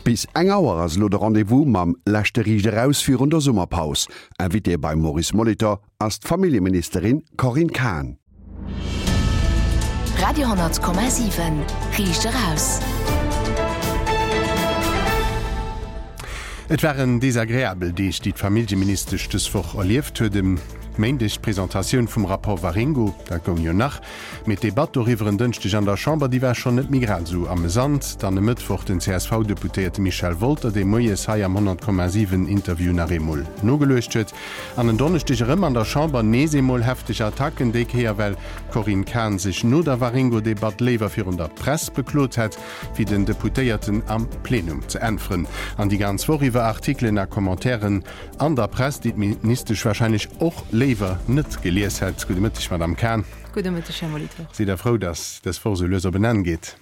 Bis eng Auer ass elo de Rendez-vous mam leschte Riicht Eraus virun der Summerpaus. Invitée beim Maurice Molitor ass d'Familljeministerin Corinne Cahen. Radio 10,7 Riicht Eraus. Et waren desagreabel Deeg, déi d'Familljeministesch dës Woch erlieft huet. E Méindeg d'Presentatioun vum Rapport Waringo, dat goung jo nach. Mee d'Debatt doriwwer en Dënschdeg an der Chamber, déi war schonn net méi grad esou amesant. Dann e Mëttwoch den CSV-Deputéierte Michel Wolter, dee moies hei am 100,7 Interview nach eemol nogeluecht huet. An en Donneschdeg erëm an der Chamber nees eemol hefteg Attacken, déi Kéier well d'Corinne Cahen sech no der Waringo-Debatt léiwer virun der Press beklot hätt, wéi den Deputéierten am Plenum ze äntweren. An déi ganz Woch iwwer Artikelen a Commentairen an der Press, déi d'Ministesch warscheinlech och léiwer net gelies hätt. Gudde Mëtteg, Madamm Cahen. Gudde Mëtteg, Här Molitor. Sidd Der frou, datt dës Woch esou lues op en Enn geet?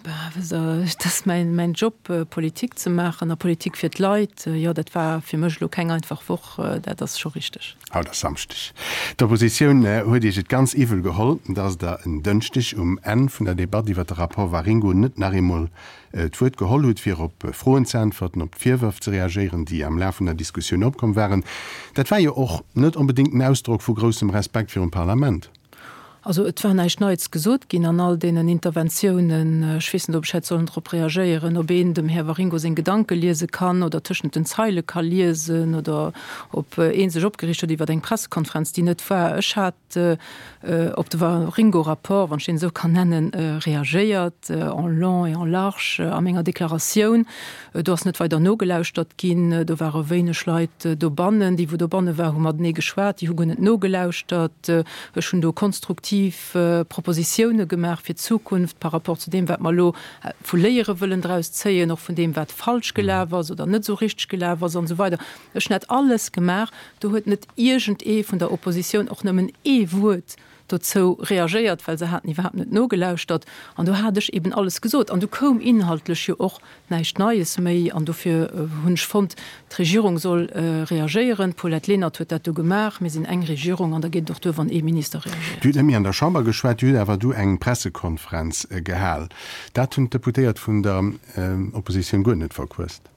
Bah, wësst Der, et ass mäin, mäin Job, Politik ze maachen a Politik fir d'Leit. Jo, dat war fir mech elo keng einfach Woch, dat ass scho richteg. Haut ass Samschdeg. D'Oppositioun huet Iech et ganz iwwel geholl, datt Der en Dënschdeg um Enn vun der Debatt iwwer de Rapport Waringo net nach eemol d'Wuert geholl hutt, fir op Froen ze äntwerten, op d'Virwërf ze reagéieren, déi am Laf vun der Diskussioun opkomm waren. Dat war jo och net onbedéngt en Ausdrock vu groussem Respekt virum Parlament. Also et war näischt Neits gesot ginn an all deenen Interventiounen. Ech weess net, ob ech hätt sollen drop reagéieren, ob een dem Här Waringo seng Gedanke liese kann oder tëschent den Zeile ka liesen oder ob ee sech opgereegt huet iwwer eng Pressekonferenz, déi net war. Ech hat op de Waringo-Rapport, wann ech deen esou kann nennen, reagéiert, en long et en large a menger Deklaratioun. Do ass net weider nogelauschtert ginn. Do ware wéineg Leit dobannen. Déi, wou dobanne war, hu matenee geschwat, déi hu guer net nogelauschtert. Ech hunn do konstruktiv Propositioune gemaach fir d'Zukunft par rapport zu deem, wat mer elo vu Léiere wëllen draus zéien, och vun deem, wat falsch gelaf ass oder net esou richteg gelaf ass an esou weider. Ech hunn dat alles gemaach. Do huet net iergend ee vun der Oppositioun och nëmmen ee Wuert dozou reagéiert, well se haten iwwerhaapt net nogelauschtert. An do hat ech eben alles gesot. An du koum inhaltlech jo och näischt Neies méi. An dofir hunn ech fonnt, d'Regierung soll reagéieren. D'Paulette Lenert huet dat du gemaach. Mir sinn eng Regierung an da geet et och duer, wann ee Minister reagéiert. Dir hutt net méi an der Chamber geschwat, Dir hutt awer du eng Pressekonferenz gehal. Dat hunn d'Deputéiert vun der Oppositioun guer net verquësst.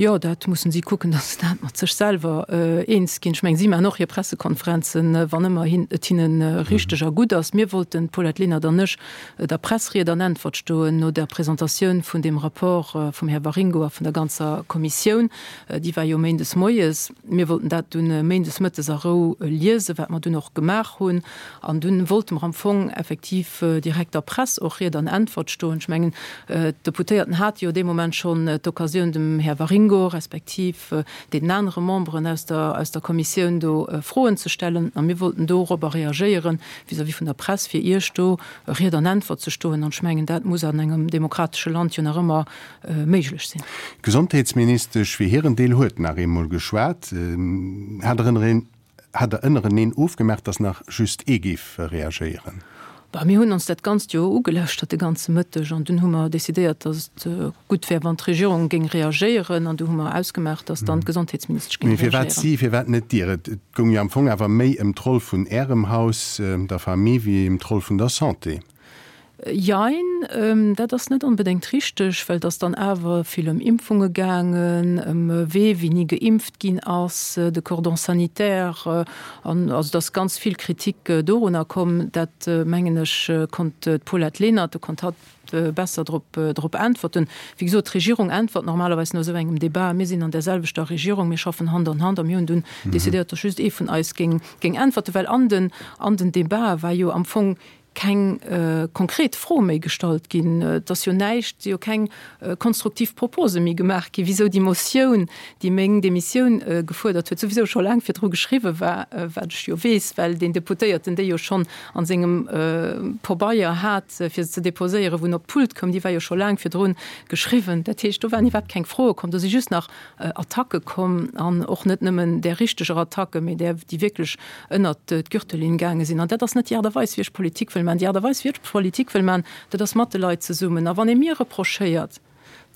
Jo, dat mussen si kucken, datt se dat mat sech selwer eens ginn. Ech mengen, si maachen och hir Pressekonferenzen, wann ëmmer et hinne richteg a gutt ass. Mir wollten, d'Paulette Lenert an ech, der Press Ried an Äntwert stoen no der Presentatioun vun deem Rapport vum Här Waringo a vun der ganzer Kommissioun. Déi war jo méindes moies. Mir wollten dat dunn méindes mëttes a Rou liesen, wat mer dunn och gemaach hunn. An dunn wollte mer am Fong effektiv direkt der Press och Ried an Äntwert stoen. Ech mengen, d'Deputéierten hate jo dee Moment schonn d'Occasioun, dem Här Waringo respektiv deenen anere Memberen aus der, aus der Kommissioun do Froen ze stellen. A mir wollten dorobber reagéieren vis-à-vis vun der Press, fir Iech do Ried an Äntwert ze stoen. An ech mengen, dat muss an engem demokratesche Land jo nach ëmmer méiglech sinn. D'Gesondheetsministesch fir hiren Deel huet nach eemol geschwat. Hat erënnere Hat der ënnereneen ofgemaach, dass nach just ee géif reagéieren? Bah, mir hunn ons dat Ganzt jo ugelauschtert de ganze Mëtteg an dunn hu mer decidéiert, dass et gutt wär, wann d'Regierung géing reagéieren an du hu mer ausgemaach, dass dann d'Gesondheetsministesch géing Mee firwat reagéieren. si, firwat net Dir? Et goung jo am Fong awer méi ëm d'Roll vun Ärem Haus, der Famille, wéi ëm d'Roll vun der Santé. Jein, dat ass net onbedéngt richteg, well et ass dann awer vill ëm Impfunge gaangen, ëm wee wéini geimpft ginn ass, de Cordon sanitaire, an also et ass ganz vill Kritik dorunner komm. Dat, mengen ech, konnt d'Paulette Lenert, do konnt hatt besser drop drop äntwerten. Wéi gesot, d'Regierung äntwert normalerweis no esou engem Debat. Mir sinn an där selwechter Regierung, mir schaffen Hand an Hand a mir hunn dunn decidéiert, datt just ee vun eis géing géing äntwerten, well an den an den Debatë war jo am Fong keng konkret Fro méi gestallt ginn. Et ass jo näischt, si jo keng konstruktiv Propose méi gemaach ginn, wisou déi Motioun, déi meng Demissioun gefuerdert huet, souwisou scho laang virdru geschriwwe war, wat ech jo weess, well deen Deputéierten déi jo schonn a sengem Pobeier hat, fir se ze deposéieren, wou en op d'Pult koum, déi war jo scho laang virdru geschriwwen. Dat heescht, do waren iwwerhaapt keng Froe komm, do si just nach Attacke komm an och net nëmmen där richteger Attacke, mee där, déi wierklech ënnert d'Gürtellinn gaange sinn. An dat ass net déi Aart a Weis, wéi ech Politik wëll maachen. Déi Aart a Weis, wéi ech Politik wëll maachen, dat ass mat de Leit zesummen. A wann ee mir reprochéiert,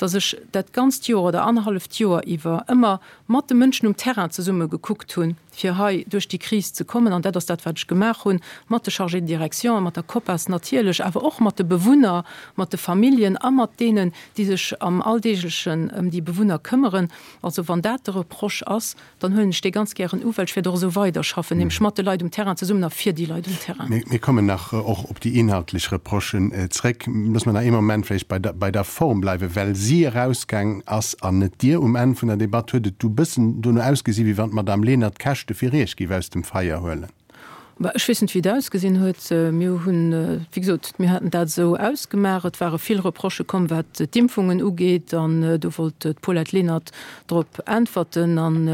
datt ech dat ganzt Joer oder annerhalleft Joer iwwer ëmmer mat de Mënschen um Terrain zesumme gekuckt hunn, fir hei duerch déi Kris ze kommen. An dat ass dat, wat ech gemaach hunn, mat de Chargés de direction, mat der COPAS natierlech, awer och mat de Bewunner, mat de Familljen a mat deenen, déi sech am Alldeeglechen ëm déi Bewunner këmmeren. Also wann dat de Reproche ass, dann huelen ech dee ganz gären u, well ech wäert och esou weiderschaffen, nämlech mat de Leit um Terrain zesummen a fir déi Leit um Terrain. Mir kommen nach och op déi inhaltlech Reprochen zréck. Loosse mer nach ee Moment vläicht bei der, bei der Form bleiwen. Well si erausgaang ass an net Dir um Enn vun der Debatt, huet et du bëssen dono ausgesi wéi wann d'Madame Lenert d'Käschte fir Iech géif aus dem Feier huelen. Bah, ech weess net, wéi et ausgesinn huet. Mir hunn, wéi gesot, mir haten dat esou ausgemaach. Et ware vill Reprochë komm, wat d'Impfungen ugeet, an do wollt d'Paulette Lenert drop äntwerten an,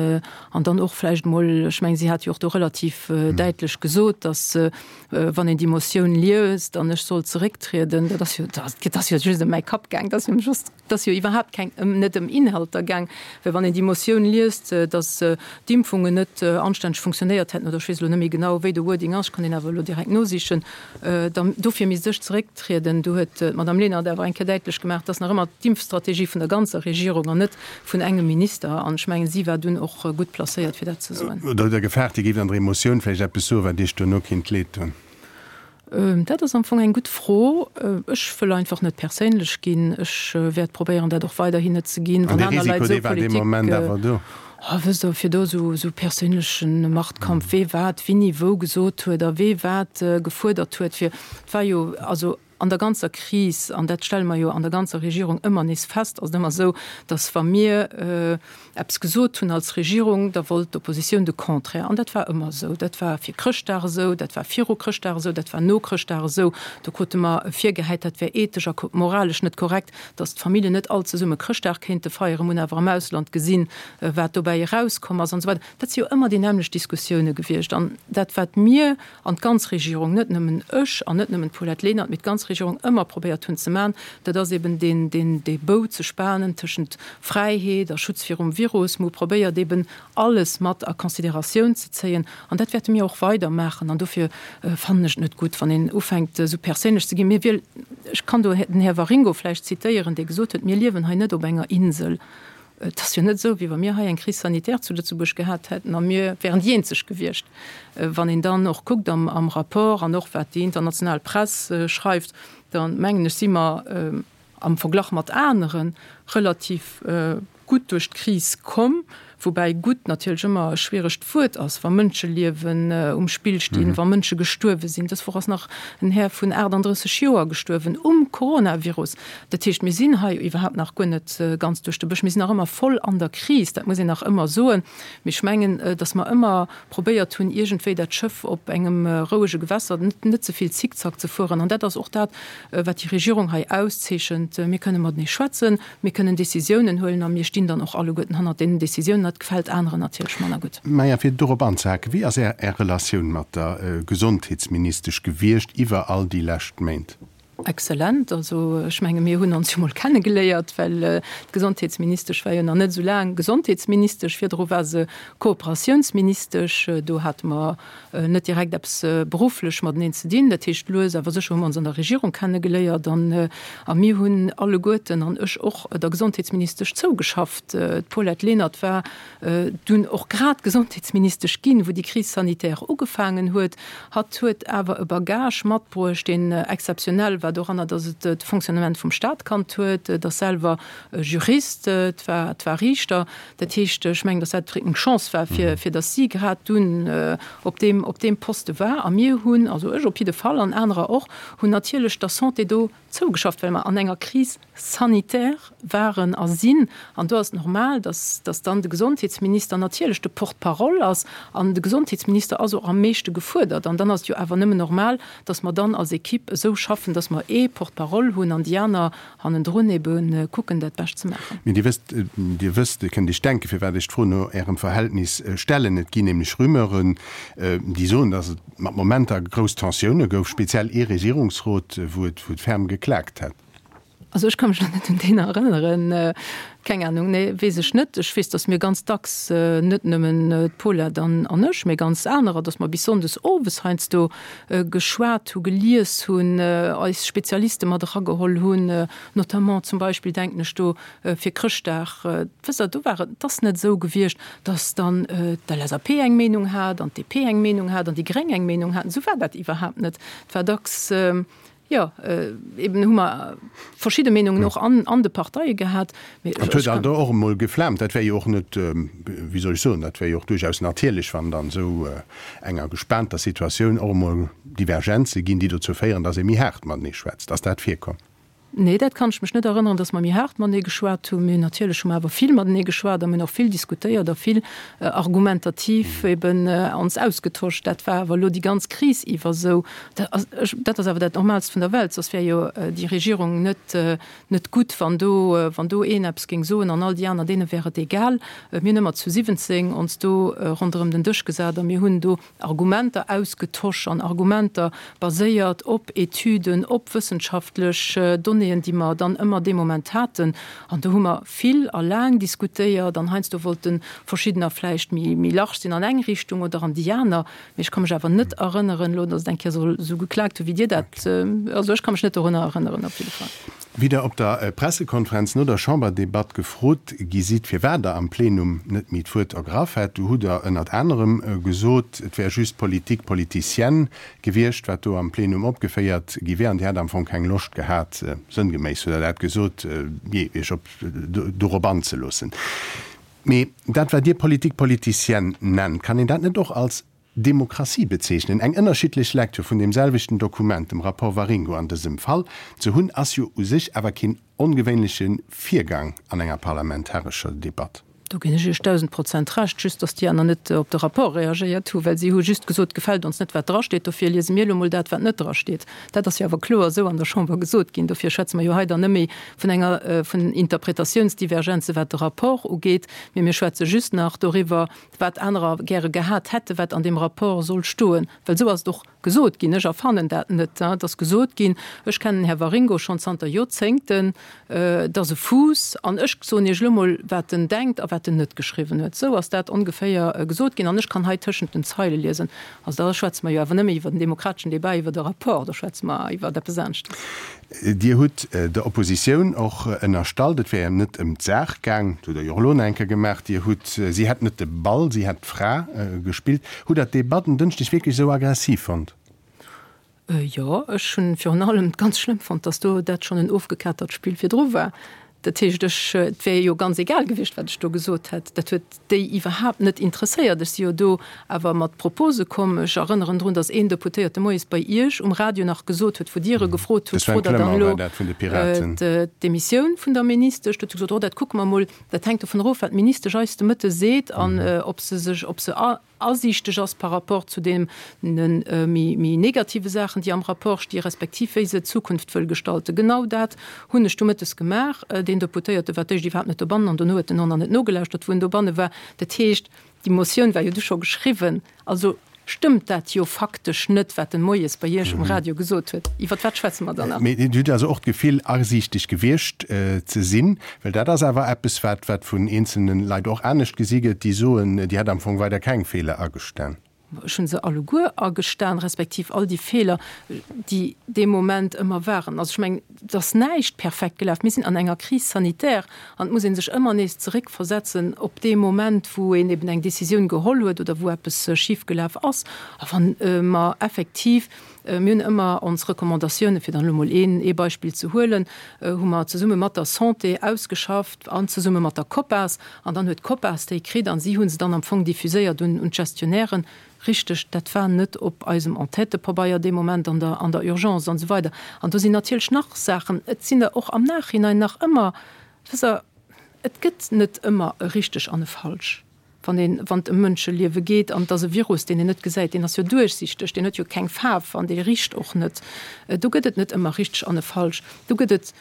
an dann och vläicht emol, ech mengen, si hat jo och do relativ däitlech gesot, datt, wann een déi Motioun liest an ech soll zerécktrieden, dat ass jo, dat ass jo just ëm mäi Kapp gaang, dat ass jo just. Et ass jo iwwerhaapt keng, net ëm Inhalter gaang, well wann een déi Motioun liest, datt d'Impfungen net anstänneg funktionéiert hätten, oder ech weess elo net méi genau, wéi de Wording ass, ech kann deen awer elo direkt nosichen, dann dofir misst ech zerécktrieden. Do huet d'Madame Lenert awer eng Kéier däitlech gemaach, et ass nach ëmmer d'Impfstrategie vun der ganzer Regierung an net vun engem Minister. An ech mengen, si war dunn och gutt placéiert, fir dat ze soen. Oder hutt Der gefaart, Dir géift an der Emotioun vläicht eppes soen, wat Iech duerno kinnt leed doen? Dat ass am Fong eng gutt Fro. Ech wëll einfach net perséinlech ginn. Ech wäert probéieren, dat och weiderhin net ze ginn. An dee Risiko, dee war dee Moment awer do? Oh, wësst Der, fir do esou perséinleche Machtkampf, wee wat wéini wou gesot huet a wee wat gefuerdert huet, fir, et war jo, also an der ganzer Kris, an dat stelle mer jo an der ganzer Regierung ëmmer nees fest, ass et ëmmer esou, datt wa mir, eppes gesot hunn als Regierung, da wollt d'Oppositioun de Contraire. An dat war ëmmer esou. Dat war fir Chrëschtdag esou, dat war viru Chrëschtdag esou, dat war no Chrëschtdag esou. Do krute mer virgehäit, dat wär ethesch a moralesch net korrekt, datt d'Familljen net all zesumme Chrëschtdag kéinte feieren. Mir hunn awer am Ausland gesinn, wat dobäi erauskomm ass an esou weider. Dat si jo ëmmer déi nämmlecht Diskussioune gewiescht. An dat, wat mir an d'ganz Regierung, net nëmmen ech an net nëmmen d'Paulette Lenert, mee d'ganz Regierung ëmmer probéiert hunn ze maachen, dat ass eben deen, deen, dee Bou ze spanen tëschent Fräiheet a Schutz virum Virus. Mer hu probéiert eben alles mat a Consideratioun ze zéien an dat wäerte mir och weider maachen. An dofir fannen ech et net gutt, wann een ufänkt esou perséinlech ze ginn. Mir wiel, ech kann do den Här Waringo vläicht zitéieren, dee gesot huet, mir liewen hei net op enger Insel. Et ass jo net esou, wéi wa mir hei eng Crise sanitaire zu Lëtzebuerg gehat hätten a mir wären déi eenzeg gewiescht. Wann een dann och kuckt am Rapport an och wat déi international Press schreift, da mengen ech, si mer am Verglach mat anere relativ gutt duerch d'Kris komm. Woubäi gutt natierlech ëmmer e schwieregt Wuert ass, wa Mënscheliewen um Spill stinn, wa Mënsche gestuerwe sinn. Dës Woch ass nach en Här vun 38 Joer gestuerwen um Coronavirus. Dat heescht, mir sinn hei iwwerhaapt nach guer net ganz duerch de Bësch. Mir sinn nach ëmmer voll an der Kris, dat muss een nach ëmmer soen. Mee ech mengen, datt mer ëmmer probéiert hunn, iergendwéi dat Schëff op engem rouege Gewässer, net ze vill Zickzack ze fueren. An dat ass och dat, wat déi Regierung hei auszeechent. Mir kënne matenee schwätzen, mir kënnen Décisiounen huelen a mir stinn dann och alleguerten hannert deenen Décisiounen. Dat gefält aneren natierlech manner gutt. Maja, fir dorop anzehaken, Wéi ass Är Relatioun mat der Gesondheetsministesch gewiescht iwwer all déi lescht Méint? Exzellent. Also ech menge mir hunn ons jo mol kennegeléiert, well d'Gesondheetsministesch war jo nach net esou laang Gesondheetsministesch. Virdru war se Kooperatiounsministesch. Do hate mer net direkt eppes berufflech mateneen ze dinn. Dat heescht, lues awer sécher hu mer ons an der Regierung kennegeléiert an a mir hunn alleguerten, an ech och, der Gesondheetsministesch zougeschafft. D'Paulette Lenert war dunn och grad Gesondheetsministesch ginn, wou déi Crise sanitaire ugefaangen huet. Hatt huet awer e Bagage matbruecht, deen exzeptionell war doranner, datt et de Fonctionnement vum Staat kannt huet, et ass selwer Jurist, et war, et war Riichter. Dat heescht, ech mengen, datt dat eng Chance war, fir, fir datt si grad dunn op deem, op deem Poste war. A mir hunn, also ech op jidde Fall an anerer och, hunn natierlech der Santé do zougeschafft, well mer an enger Crise sanitaire waren a sinn. An do ass et normal, dass, dass dann de Gesondheetsminister natierlech de Porte-parole ass. An de Gesondheetsminister ass och am meeschte gefuerdert. An dann ass et jo awer nëmmen normal, dass mer dann als Equipe esou schaffen, dass mer ee Porte-parole hunn an déi aner hannendrun ebe kucken, dat Bescht ze maachen. Mee Dir wësst, Dir wësst, Dir kënnt Iech denken, firwat ech d'Fro no Ärem Verhältnis stellen. Et ginn nämlech Rumeuren, déi soen, dass et mat Momenter grouss Tensioune gouf, speziell ee Regierungsrot, wou et ferm geklaakt hätt. Also ech ka mech elo net un deen erënneren. Keng Anung, nee, weess ech net. Ech weess, datt mir ganz dacks, net nëmmen d'Paulette an an ech, mee ganz anerer, datt mer bis sonndes owes heiansdo geschwat hu, gelies hunn, eis Spezialiste mat erageholl hunn, notamment zum Beispill denken ech do fir Chrëschtdag. Wësst Der, do war et, et ass net esou gewiescht, datt dann d'LSAP eng Meenung hat an d'DP eng Meenung hat an déi Gréng eng Meenung haten. Esou war dat iwwerhaapt net. Et war dacks, Jo, eben hu mer verschidde Meenungen och an de Parteie gehat. Mee ech. Et huet alt och emol geflaamt. Dat wär jo och net, wéi soll ech soen, dat wär jo och duerchaus natierlech, wann an esou enger gespaanter Situatioun och emol Divergenze ginn, déi dozou féieren, datt ee méi haart matenee schwätzt. Ass dat virkomm? Nee, dat kann ech mech net erënneren, datt mer méi haart matenee geschwat hunn. Mee natierlech hu mer awer vill matenee geschwat a mir hunn och vill diskutéiert a vill argumentativ eben ons ausgetosch. Dat war awer elo déi ganz Kris iwwer esou. Dat ass awer dat Normaalst vun der Welt, soss wär jo déi Regierung net net gutt, wann do wann do een eppes géing soen an all déi aner, deene wär et egal. Mir hunn ëmmer zu 17 ons do ronderëm den Dësch gesat a mir hunn do Argumenter ausgetosch an Argumenter baséiert op Etüden, op wëssenschaftlech Donnéeën, déi mer dann ëmmer dee Moment haten. An do hu mer vill a laang diskutéiert an heiansdo wollte verschiddener vläicht méi méi large sinn an eng Richtung oder an déi aner. Mee ech ka mech awer net erënneren elo, datt et eng Kéier soll esou geklaakt hu wéi Dir dat. Also ech ka mech net dorunner erënneren op jidde Fall. Wéi Der op der Pressekonferenz no der Chamberdebatt gefrot gi sidd, firwat Der am Plenum net méi d'Wuert ergraff hätt, du hutt Der ënnert anerem gesot, et wär just Politique politicienne gewiescht, wat do am Plenum opgeféiert gi wär, an Dir hätt am Fong keng Loscht gehat, sënngeméiss hutt Der dat gesot, jee, Iech op dorop anzeloossen. Mee dat, wat Dir Politique politicienne nennt, kann een dat net och als Demokratie bezeechnen? Eng ënnerschiddlech Lecture vun deem selwechten Dokument, dem Rapport Waringo an dësem Fall, ze hunn, ass jo u sech awer keen ongewéinleche Virgang an enger parlamentarescher Debatt. Do ginn ech Iech 1000% Recht, just datt déi aner net op de Rapport reagéiert hu, well si hu just gesot, gefält ons net wat drasteet, dofir liese mir elo mol dat wat net drasteet. Dat ass jo awer kloer esou an der Chamber gesot ginn. Dofir schwätze mer jo hei dann net méi vun enger, vun Interpretatiounsdivergenze wat de Rapport ugeet, mee mir schwätze just nach doriwwer, wat anerer gäre gehat hätte wat an deem Rapport soll stoen. Well esou ass et och gesot ginn. Ech erfannen dat net. Et ass gesot ginn, ech kennen den Här Waringo schonn zanter Joerzéngten, et ass e Fuuss an ech soen Iech elo mol, wat en denkt a wat en net geschriwwen huet. Esou ass dat ongeféier gesot ginn an ech kann hei tëschent den Zeile liesen. Also da schwätze mer jo awer net méi iwwer den demokrateschen Débat iwwer e Rapport, da schwätze mer iwwer eppes aneschtes. Dir hutt der Oppositioun och ënnerstallt, et wär net ëm d'Saach gaang. Dat hutt Der jo och elo nach eng Kéier gemaach. Dir hutt, si hätt net de Ball, si hätt d'Fra gespillt. Hutt Der d'Debatt en Dënschdeg wierklech esou aggressiv fonnt? Jo, ech hunn virun allem ganz schlëmm fonnt, datt do dat schonn en ofgekatert Spill virdru war. Dat heescht, ech, et wär jo ganz egal gewiescht, wat ech do gesot hätt. Dat huet déi iwwerhaapt net interesséiert. Ech si jo do awer mat Propose komm. Ech erënneren drun, datt een Deputéierte moies bei Iech um Radio nach gesot huet, wou Dir e gefrot hutt, Frot Der dann elo d'Demissioun vun der Ministesch? Do huet se gesot, Oh, dat kucke mer emol. Dat hänkt dovun erof, wat d'Ministesch eis de Mëtte seet an ob se sech, ob se asiichteg ass par rapport zu deene méi negative Saachen, déi am Rapport sti respektiv wéi se d'Zukunft wëll gestalten. Genau dat hunn ech du mëttes gemaach. Deen Deputéierte war d'éischt iwwerhaapt net dobannen an dono huet en och nach net nogelauschtert, wou en dobanne war. Dat heescht, déi Motioun war jo du scho geschriwwen. Also stëmmt dat jo faktesch net, wat en moies bei Iech um Radio gesot huet. Iwwer wat schwätze mer dann nach? Mee Dir hutt also och d'Gefill, asiichteg gewiescht ze sinn? Well dat ass awer eppes, wat wat vun eenzelne Leit och anescht gesi gëtt, déi soen, Dir hätt am Fong weider keng Feeler agestan. Ech hu se alleguer agestan, respektiv all déi Feeler, déi dee Moment ëmmer waren. Also ech mengen, et ass näischt perfekt gelaf. Mir sinn an enger Crise sanitaire an et muss ee sech ëmmer nees zeréckversetzen op dee Moment, wou een eben eng Décisioun geholl huet oder wou eppes schifgelaf ass. A wann mer effektiv Mir hunn ëmmer ons Recommandatiounen, fir dann elo mol een ee Beispill ze huelen, hu mer zesumme mat der Santé ausgeschafft an zesumme mat der COPAS. An dann huet d'COPAS déi kritt an si hu se dann am Fong diffuséiert un un d'Gestionnairen. Richteg, dat war net op eisem Entêtepabeier dee Moment an der an der Urgence an esou weider. An do sinn natierlech nach Saachen, et sinn der och am Nachhinein nach ëmmer, wësst Der, et gëtt net ëmmer e richteg an e falsch. Wann een, wann et ëm Mënscheliewe geet, an et ass e Virus, deen een net gesäit, deen ass jo duerchsichteg, deen huet jo keng Faarf an dee richt och net. Do gëtt et net ëmmer richteg an e falsch. Do gëtt et.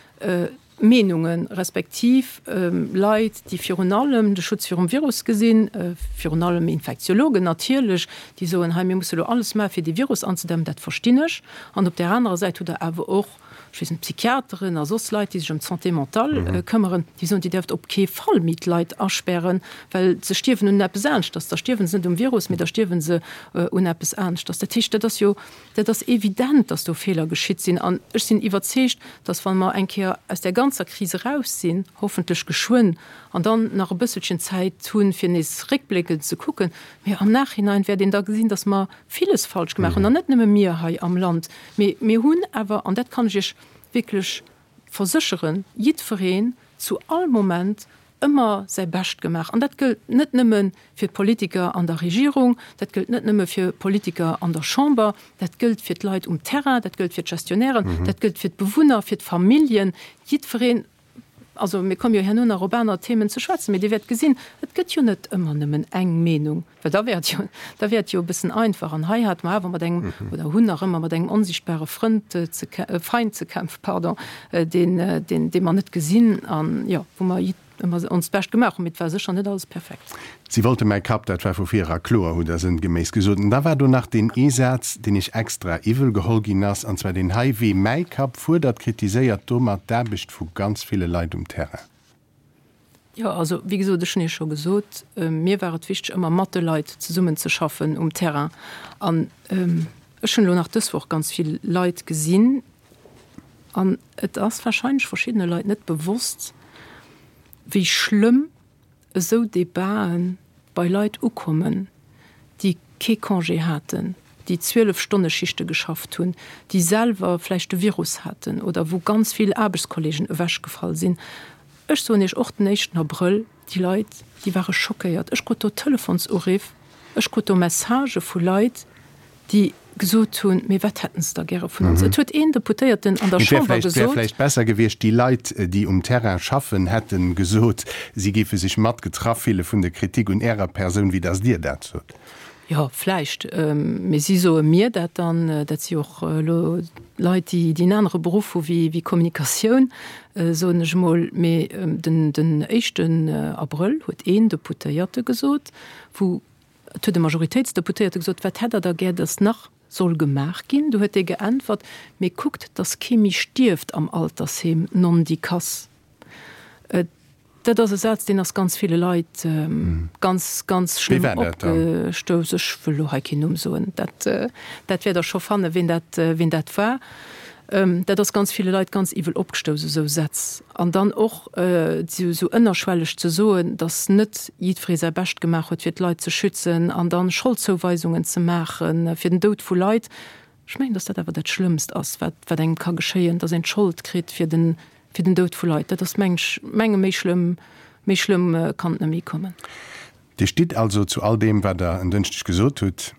Meenungen, respektiv Leit, déi virun allem de Schutz virum Virus gesinn, virun allem Infektiologen natierlech, déi soen, hei mir musse elo alles maachen, fir dee Virus anzedämmen, dat verstinn ech. An op där anerer Säit hutt Der awer och, ech weess net, Psychiateren a soss Leit, déi sech ëm d'Santé mentale këmmeren, déi soen, Dir däerft op kee Fall méi d'Leit aspären, well se stierwen un eppes aneschters. Da stierwe se net um Virus, mee da stierwe se un eppes aneschters. Dat heescht, dat ass jo Dat ass evident, dass do Feeler geschitt sinn. An ech sinn iwwerzeegt, dass, wa mer eng Kéier aus där ganzer Kris eraus sinn, hoffentlech geschwënn, an dann nach e bësselchen Zäit hunn, fir nees réckbléckend ze kucken, mee am Nachhinein wäert een da gesinn, dass mer villes falsch gemaach hunn, an net nëmme mir hei am Land, mee mir hunn awer, an dat kann ech Iech wierklech versécheren, jiddwereen zu all Moment ëmmer säi Bescht gemaach. An dat gëllt net nëmme fir d'Politiker an der Regierung, dat gëllt net nëmme fir Politiker an der Chamber, dat gëllt fir d'Leit um Terrain, dat gëllt fir d'Gestionnairen, dat gëllt fir d'Bewunner, fir d'Familljen, jiddwereen. Also mir komme jo herno nach op aner Themen ze schwätzen, mee Dir wäert gesinn, et gëtt jo net ëmmer nëmmen eng Meenung. Well da wär et jo, da wär et jo e bëssen einfach. An hei hate mer awer mat engem, oder hunn nach ëmmer mat engem onsichtbare Frënd ze, Feind ze kämpfen, pardon, deen, deen, dee mer net gesinn an, jo, wou mer ëmmer onst Bescht gemaach hunn. Mee et war sécher net alles perfekt. Si wollte mäi Kapp, dat war vu vir era kloer, hutt Der sënngeméiss gesot. An da war do nach deen ee Saz, deen Iech extra iwwel geholl ginn ass, an zwar deen hei, Wee mäi Kapp fuerdert, kritiséiert domat d'Aarbecht vu ganz ville Leit um Terrain. Jo, also wéi gesot, ech hunn Iech scho gesot, mir war et wichteg, ëmmer mat de Leit zesummenzeschaffen um Terrain. An ech hunn elo nach dës Woch ganz vill Leit gesinn an et ass warscheinlech verschiddene Leit net bewosst, wéi schlëmm esou Debaten bei Leit ukommen, déi kee Congé haten, déi 12 Stonne Schichte geschafft hunn, déi selwer vläicht de Virus haten oder wou ganz vill Aarbechtskollegen ewechgefall sinn. Ech soen Iech, och den éischten Abrëll, déi Leit, déi ware schockéiert. Ech krut do Telefonsuriff, ech krut do Messagë vu Leit, déi gesot hunn, Mee wat hätten se da gäre vun ons? Et huet een Deputéierten an der Et wär Chamber vläicht, wär gesot. vläicht besser gewiescht, déi Leit, déi um Terrain schaffen, hätte gesot, si géife sech mat getraff fille vun der Kritik un Ärer Persoun, wéi datt Dir dat sot. Jo, vläicht. Mee si soe mir dat dann. Dat si och elo Leit, déi en anere Beruff hu wéi Kommunikatioun, soen ech emol. Mee den, den éischten Abrëll huet een Deputéierte gesot, wou Et huet e Majoritéitsdeputéierte gesot, Wat hätt Der da gär, datt nach soll gemaach ginn? Du huet dee geäntwert, Mee kuckt, datt kee méi stierft am Altersheem, nondikass. Dat ass e Saz, deen ass ganz ville Leit ganz, ganz Wee schlëmm war dat dann? opgestouss. Ech wëll elo hei keen Numm soen. Dat, dat wäert Der scho fannen, ween dat, ween dat war. Dat ass ganz ville Leit ganz iwwel opgestouss, esou Sätz. An dann och esou ënnerschwelleg ze soen, datt net jiddweree säi Bescht gemaach huet, fir d'Leit ze schützen, an da Scholdzouweisungen ze maache fir den Doud vu Leit. Ech mengen, datt dat awer dat Schlëmmst ass, wat wat engem ka geschéien, datt een d'Schold kritt fir den, fir den Doud vu Leit. Dat ass, meng ech, menge méi schlëmm, méi schlëmm kann et net méi kommen. Dir stitt also zu all deem, wat Der en Dënschdeg gesot hutt?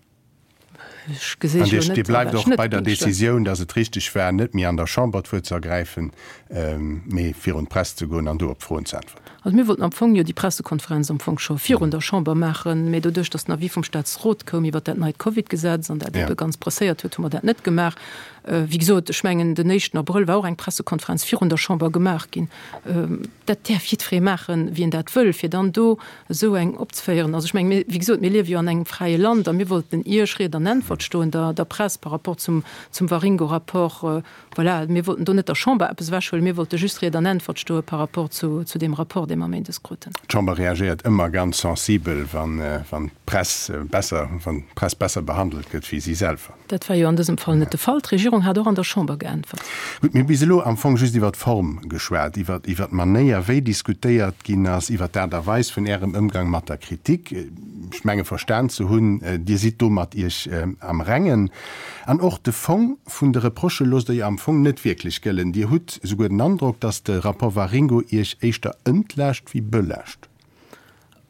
Ech gesinn An jo Dir net, bleift wat ech och net bei der géing stëmmen. Decisioun, datt et richteg war, net méi an der Chamber d'Wuert ze ergräifen, mee virun d'Press ze goen an do op d'Froen ze äntwerten. Also mir wollten am Fong jo déi Pressekonferenz am Fong scho virun der Chamber maachen, mee doduerch, datt den Avis vum Staatsrot koum iwwert dat neit Covid-Gesetz an dat ebe ganz presséiert huet, hu mer dat net gemaach. Wéi gesot, ech mengen, den éischten Abrëll war och eng Pressekonferenz virun der Chamber gemaach ginn. Dat däerf jiddweree maachen, wien dat wëll, fir dann do esou eng opzeféieren. Also ech mengen, mir, wéi gesot, mir liewe jo an engem fräie Land a mir wollten Iech Ried an Äntwert stoen, der, der Press par rapport zum, zum Waringo-Rapport. Voilà, mir wollten do net der Chamber eppes ewechhuelen, mir wollte just Ried an Äntwert stoe par rapport zu, zu deem Rapport, dee mer méindes kruten. D'Chamber reagéiert ëmmer ganz sensibel, wann, wann d'Press besser, wann d'Press besser behandelt gëtt wéi si selwer. Dat war jo an dësem Fall net de Fall. D'Regierung hat och an der Chamber geäntwert. Gutt, mir hu bis elo am Fong just iwwer d'Form geschwat, iwwer iwwer d'Manéier, wéi diskutéiert ginn ass, iwwer d'Aart a Weis vun Ärem Ëmgang mat der Kritik. Ech menge verstan ze hunn, Dir sidd do mat Iech am Rengen. An och de Fong vun de Reprochë loosst Der jo am Fong net wierklech gëllen. Dir hutt souguer den Androck, datt de Rapport Waringo Iech éischter entlaascht wéi belaascht.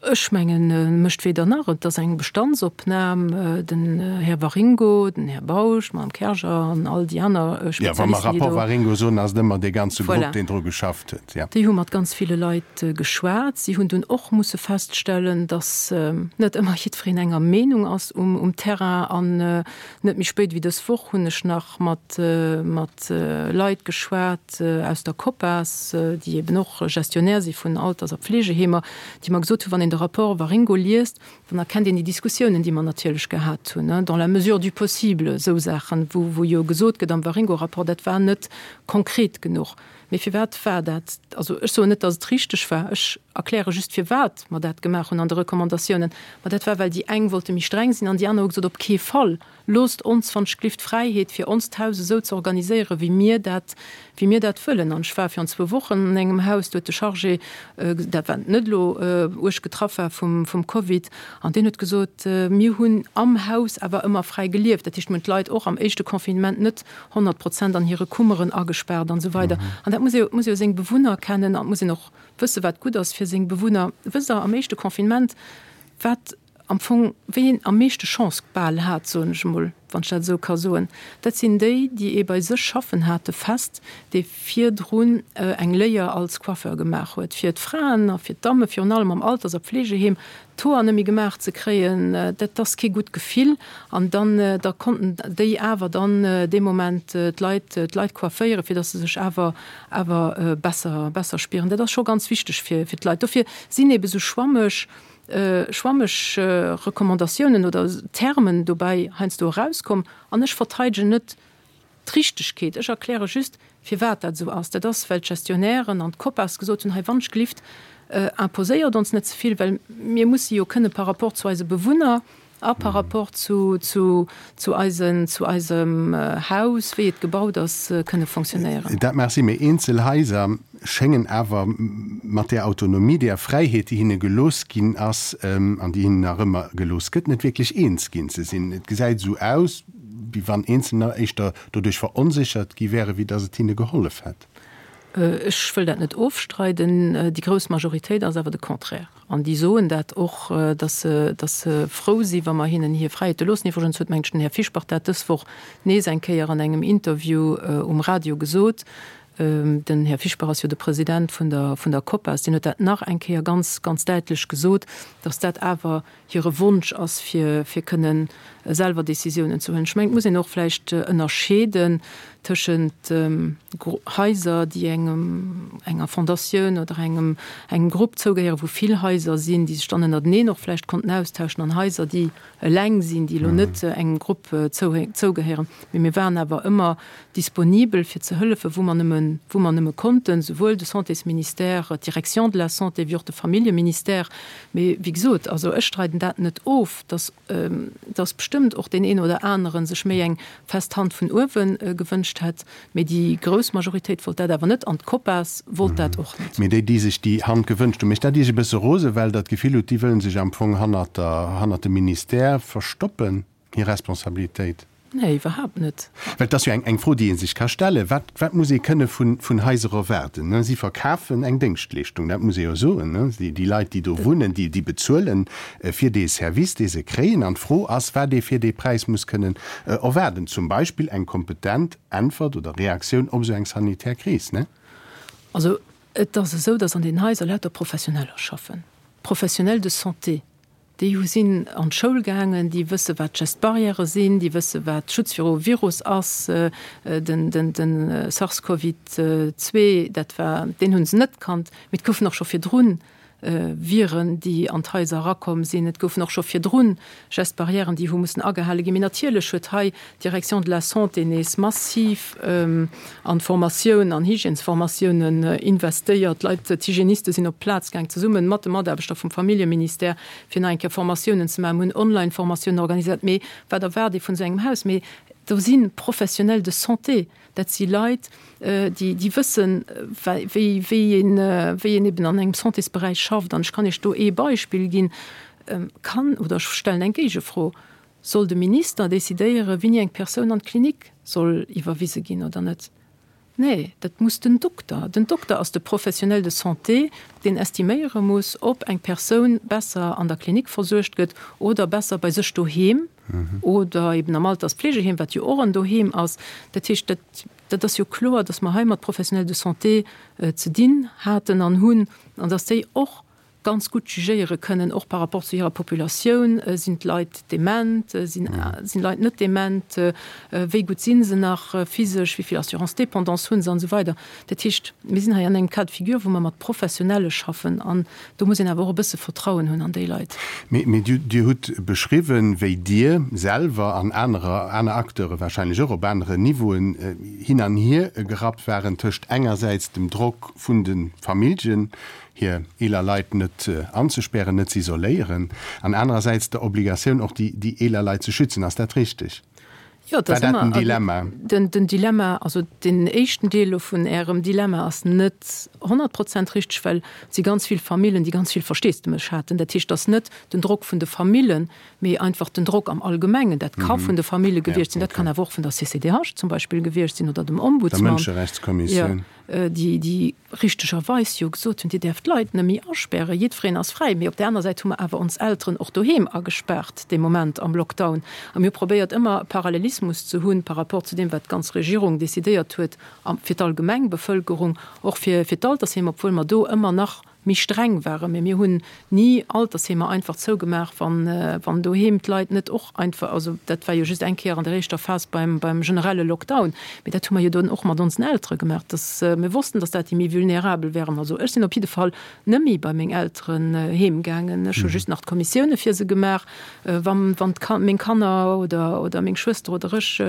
Ech mengen, e mécht weder nach. Et ass eng Bestandsopnam. Den Här Waringo, den Här Bausch, d'Madame Kerger an all déi aner Spezialisten, déi do. Jo, wa mer Rapport Waringo soen, ass et ëmmer dee ganze Grupp, deen dru geschafft huet, jo. Déi hu mat ganz ville Leit geschwat. Si hunn dunn och musse feststellen, datt net ëmmer jiddwereen enger Meenung ass um Terrain. An net méi spéit wéi dës Woch hunn ech nach mat Leit geschwat aus der COPAS, déi eben och Gestionnaire si vun Alters a Pflegeheemer, déi mer gesot hunn, wann een de Rapport Waringo liest, dann erkennt een déi Diskussiounen, déi mer natierlech gehat hunn, dans la mesure du possible, esou Saachen, wou jo gesot gëtt am Waringo-Rapport, dat war net konkret genuch. Mee firwat war dat? Also ech soen net, datt et richteg war, ech erkläre just, firwat mer dat gemaach hunn an de Recommandatiounen. Ma dat war, well déi eng wollte méi streng sinn an déi aner hu gesot, op kee Fall. Loosst ons wann ech glift d'Fräiheet fir onst Haus esou ze organiséieren, wéi mir dat, wéi mir dat wëllen. An ech war virun zwou Wochen an engem Haus, do huet de Chargé, dat war net elo uerg getraff war vum, vum Covid, an deen huet gesot, mir hunn am Haus awer ëmmer fräi gelieft. Dat heescht, mir hunn d'Leit och am éischte Confinement net 100 Prozent an hire Kummeren agespaart an esou weider. An dat muss ee, muss ee jo seng Bewunner kennen an et muss een och wëssen, wat gutt ass fir seng Bewunner. Wësst Der, am éischte Confinement, wat am Fong, wéi een am meeschte Chance bal hat, soen ech emol, wann ech dat esou ka soen, dat sinn déi, déi ee bei sech schaffen hate fest, dee virdrun eng Léier als Coiffeur gemaach huet, fir d'Fraen a fir d'Damme virun allem am Alters a Pflegeheem d'Hoer net méi gemaach ze kréien, dat ass kee gutt Gefill. An dann, da konnten déi awer dann dee Moment d'Leit, d'Leit coifféieren, fir datt se sech awer, awer besser, besser spieren. Dat ass scho ganz wichteg fir, fir d'Leit. Dofir sinn eebe sou schwammeg, schwammeg Recommandatiounen oder Termen dobäi heiansdo erauskomm. An ech verteidegen net d'Richtegkeet, ech erkläre just, firwat dat esou ass. Dat ass, well d'Gestionnairen an d'COPAS gesot hunn, hei wannschglift, imposéiert ons net ze vill, well mir musse jo kënne par rapport zu eise Bewunner a par rapport zu, zu, zu eisen, zu eisem Haus, wéi et gebaut ass, kënne fonctionnéieren. Dat mag sinn, mee eenzel Haiser schéngen awer mat där Autonomie, där Fräiheet, déi hinne gelooss ginn ass an déi hinnen nach ëmmer gelooss gëtt, net wierklech eens ginn ze sinn. Et gesäit esou aus, wéi wann Eenzelner éischter doduerch veronséchert gi wären, wéi datt et hinne gehollef hätt. Ech wëll dat net ofstreiden. Déi grouss Majoritéit ass awer de Contraire. An déi soen dat och, datt se, datt se frou si wa mer hinnen hir Fräiheete loossen. Iwwregens huet, mengen ech, den Här Fischbach dat dës Woch nees eng Kéier an engem Interview um Radio gesot. Den Här Fischbach ass jo de President vun der, vun der COPAS, deen huet dat nach eng Kéier ganz, ganz däitlech gesot, datt dat awer hire Wonsch ass, fir, fir kënnen selwer Décisiounen ze huelen. Ech mengen, et muss een och vläicht ënnerscheeden tëschent Haiser, déi engem, enger Fondatioun oder engem, engem Grupp zougehéieren, wou vill Haiser sinn, déi sech dann ënnerteneen och vläicht konnten austauschen, an Haiser, déi eleng sinn, déi elo net engem Grupp zougehéieren. Mee mir waren awer ëmmer disponibel fir ze hëllefen, wou mer nëmme, wou mer nëmme konnten, souwuel de Santésministère, d'Direction de la Santé wéi och de Familljeministère. Mee wéi gesot, also ech streiden dat net of, dass, dass bestëmmt och deen een oder anere sech méi eng fest Hand vun uewe gewënscht hätt. Mee déi grouss Majoritéit wollt dat awer net an d'Copas wollt dat och net. Mee déi, déi sech déi Hand gewënscht hunn, mécht dat Iech e bësse rosen, well Der d'Gefill hutt, déi wëllen sech am Fong hannert der, hannert dem Ministère verstoppen, hir Responsabilitéit? Nee, iwwerhaapt net. Well et ass jo eng, eng Fro, déi ee sech ka stellen, Wat, wat muss ee kënne vun, vun Haiser erwaarden? Si verkafen eng Déngschtleeschtung, dat muss ee jo soen. Déi, déi Leit, déi do wunnen, déi, déi bezuelen fir dee Service, dee se kréien. An d'Fro ass, wat ee fir dee Präis muss kënnen erwaarden. Zum Beispill eng kompetent Äntwert oder Reaktioun op esou eng sanitär Kris, ne? Also et ass esou, datt an den Haiser lauter Professioneller schaffen, Professionnels de santé, déi hu sinn an d'Schoul gaangen, déi wësse wat d'Gestes barrières sinn, déi wësse wat Schutz viru Virus ass, den den SARS-Covid 2, dat war, deen hunn se net kannt, mee et goufen och scho virdrun Viren, déi an d'Haiser erakomm sinn. Et goufen och scho virdrun Gestes barrièren, déi hu mussen agehale ginn. Mee natierlech huet hei d'Direction de la Santé nees massiv an d'Formatioun, an Hygiènesformatiounen investéiert. D'Leit, d'Hygiéniste sinn op d'Plaz gaang, zesumme mat de Mataarbechter vum Familljeministère, fir nach eng Kéier Formatiounen ze maachen. Mir hunn Online-Formatiounen organiséiert. Mee wat erwaart ee vun esou engem Haus? Mee do si Professionnels de santé. Dat si Leit, déi, déi wëssen, wéi, wéi een, wéi een eben an engem Santésberäich schafft. An ech kann Iech do ee Beispill ginn. Kann, oder ech stellen eng Géigefro, Soll de Minister decidéieren, wéini eng Persoun an d'Klinik soll iwwerwise ginn oder net? Nee, dat muss den Dokter. Den Dokter ass de Professionnel de santé, deen estiméiere muss, ob eng Persoun besser an der Klinik versuergt gëtt oder besser bei sech doheem oder eben am Alterspflegeheem, wat jo och en Doheem ass. Dat heescht, dat, dat ass jo kloer, dass mer hei mat Professionnels de santé ze dinn haten an hunn an dass déi och ganz gutt jugéiere kënnen, och par rapport zu hirer Populatioun, Sinn d'Leit dement, sinn d'Leit net dement, wéi gutt si se nach physesch, wéi vill Assurance dépendance hu se an esou weider. Dat heescht, mir sinn hei an engem Cas de figure, wou mer mat Professionelle schaffen an do muss een awer och e bësse Vertrauen hunn an déi Leit. Mee Dir hutt beschriwwen, wéi Dir selwer an anerer, aner Acteure wahrscheinlech och op aneren Niveauen hin an hier gerappt waren tëscht engersäits dem Drock vun de Familljen, hir eeler Leit net anzespären, net ze isoléieren, an anerersäits der Obligatioun och déi déi eeler Leit ze schützen. Ass dat richteg? Jo, et ass War dat ëmmer den Dilemma? den, den Dilemma, also deen éischten Deel elo vun Ärem Dilemma ass net 100 Prozent richteg, well et si ganz vill Famillen, déi ganz vill Versteesdemech haten. Dat heescht, et ass net den Drock vun de Famillen, mee einfach den Drock am Allgemengen. Dat ka vun de Famille gewiescht sinn, dat kann awer och vun der CCDH zum Beispill gewiescht sinn oder dem Der Ombudsman. Mënscherechtskommissioun. Déi, déi richtegerweis jo gesot hunn, Dir däerft d'Leit net méi aspären, jiddwereen ass fräi. Mee op där aner Säit hu mer awer ons Elteren och doheem agespaart dee Moment am Lockdown. A mir hu probéiert, ëmmer e Parallelismus ze hunn par rapport zu deem, wat d'ganz Regierung decidéiert huet fir d'allgemeng Bevëlkerung, och fir d'Altersheem, obwuel mer do ëmmer nach méi streng waren. Mee mir hunn ni Altersheemer einfach zougemaach, wann, wann doheem d'Leit net och einfach, also dat war jo just eng Kéier an der éischter Phas beim, beim generelle Lockdown, mee dat hu mer jo dunn och mat onsen Eltere gemaach, dass mir wossten, dass dat déi méi vulnerabel wären. Also ech sinn op jidde Fall net méi bei meng Elteren heem gaangen. Ech hu just nach d'Kommissioune fir se gemaach, wann, wann d'Kan, meng Kanner oder, oder meng Schwëster oder ech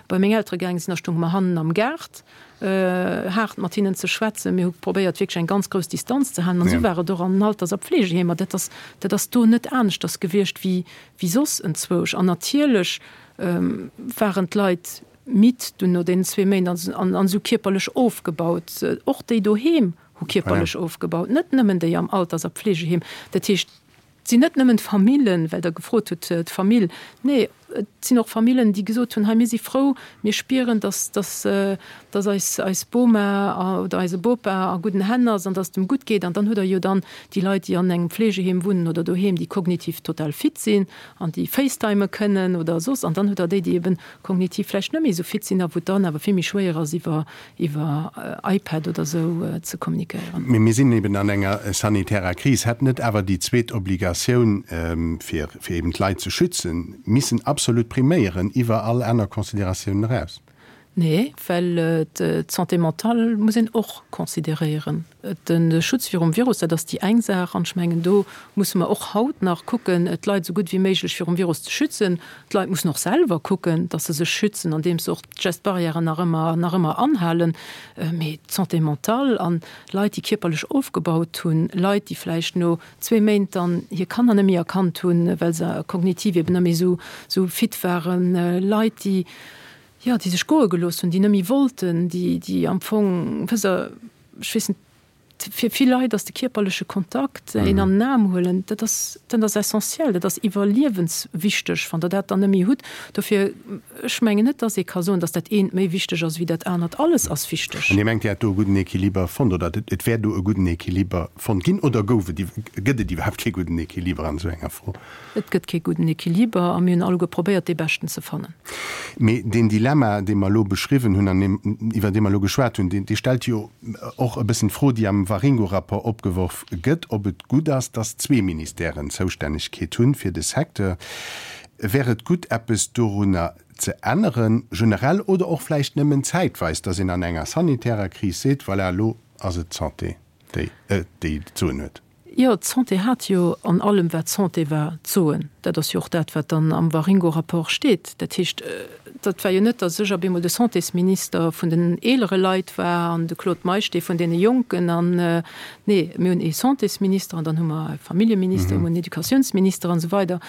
bei meng Eltere gaange sinn, da stounge mer hannen am Gaart. haart mat hinnen ze schwätzen. Mir hu probéiert wierklech eng ganz grouss Distanz ze halen an esou war et och an den Alters a Pflegeheemer. Dat ass, dat ass do net aneschters gewiescht wéi, wéi soss enzwousch. An natierlech waren d'Leit midd dunn no deenen zwee Méint an, an esou kierperlech ofgebaut. Och déi doheem hu kierperlech ofgebaut, net nëmmen déi am Alters a Pflegeheem. Dat heescht, Et sinn net nëmmen d'Famillen, well Der gefrot hutt, d'Famill. Nee, et sinn och Famillen, déi gesot hunn, hei mir si frou, mir spieren, dass, dass, dass eis, eis Boma oder eise Bopa a gudden Hänn ass an dass et em gutt geet. An dann hutt Der jo dann déi Leit, déi an engem Fleegeheem wunnen oder doheem, déi kognitiv total fit sinn an déi facetimen kënnen oder soss. An dann hutt Der déi, déi eben kognitiv vläicht net méi esou fit sinn a wou et dann awer vill méi schwéier ass, iwwer iwwer iPad oder esou ze kommunikéieren. Mee mir sinn eben an enger sanitärer Kris. Hätt net awer déi zweet Obligatioun, fir fir eben d'Leit ze schützen, missen absolut priméieren iwwer all aner Considératiounen eraus? Nee, well d'Santé mentale muss een och consideréieren. De Schutz virum Virus, dat ass déi eng Saach. An ech mengen, do musse mer och haut nach kucken, d'Leit esou gutt wéi méiglech virum Virus ze schützen. D'Leit mussen och selwer kucken, dass se sech schützen, andeems se och d'Gestes barrières nach ëmmer, nach ëmmer anhalen. Mee d'Santé mentale an Leit, déi kierperlech ofgebaut hunn, Leit, déi vläicht no zwee Méint dann hir Kanner net méi erkannt hunn, well se kognitiv eben net méi esou, esou fit waren, Leit, déi, jo, déi sech goe gelooss hunn, déi net méi wollten, déi, déi am Fong, wësst Der, ech weess net, Fir vill Leit ass de kierperleche Kontakt, een an den Aarm huelen, dat ass, dat ass essentiell, dat ass iwwerliewenswichteg. Wann Der dat dann net méi hutt, dofir, ech mengen net, dass ee ka soen, dass dat eent méi wichteg ass wéi dat anert. Alles ass wichteg. An Dir mengt, Dir hätt do e gudden Equiliber fonnt oder et wär do e gudden Equiliber fonnt ginn oder gouf et, gëtt et iwwerhaapt kee gudden Equiliber an esou enger Fro? Et gëtt kee gudden Equiliber a mir hunn alleguer probéiert, dee beschten ze fannen. Mee deen Dilemma, dee mer elo beschriwwen hunn an deem, iwwer dee mer elo geschwat hunn, dee stellt jo och e bëssen d'Fro, déi am Waringo-Rapport opgeworf gëtt, ob et gutt ass, dass zwee Ministèren d'Zoustännegkeet hunn fir de Secteur. Wär et gutt, eppes dorunner ze änneren, generell oder och vläicht nëmmen zäitweis, dass een an enger sanitärer Kris seet, voilà, elo ass et d'Santé, déi, déi d'Soen huet? Jo, d'Santé hat jo an allem, wat Santé war, d'Soen. Dat ass jo och dat, wat dann am Waringo-Rapport steet. Dat heescht, dat war jo net, datt ech op eemol de Santésminister vun den eelere Leit war an de Claude Meisch dee vun deene Jonken. An, nee, mir hunn ee Santésminister an dann hu mer e Familljeminister, mir hunn en Educatiounsminister an esou weider.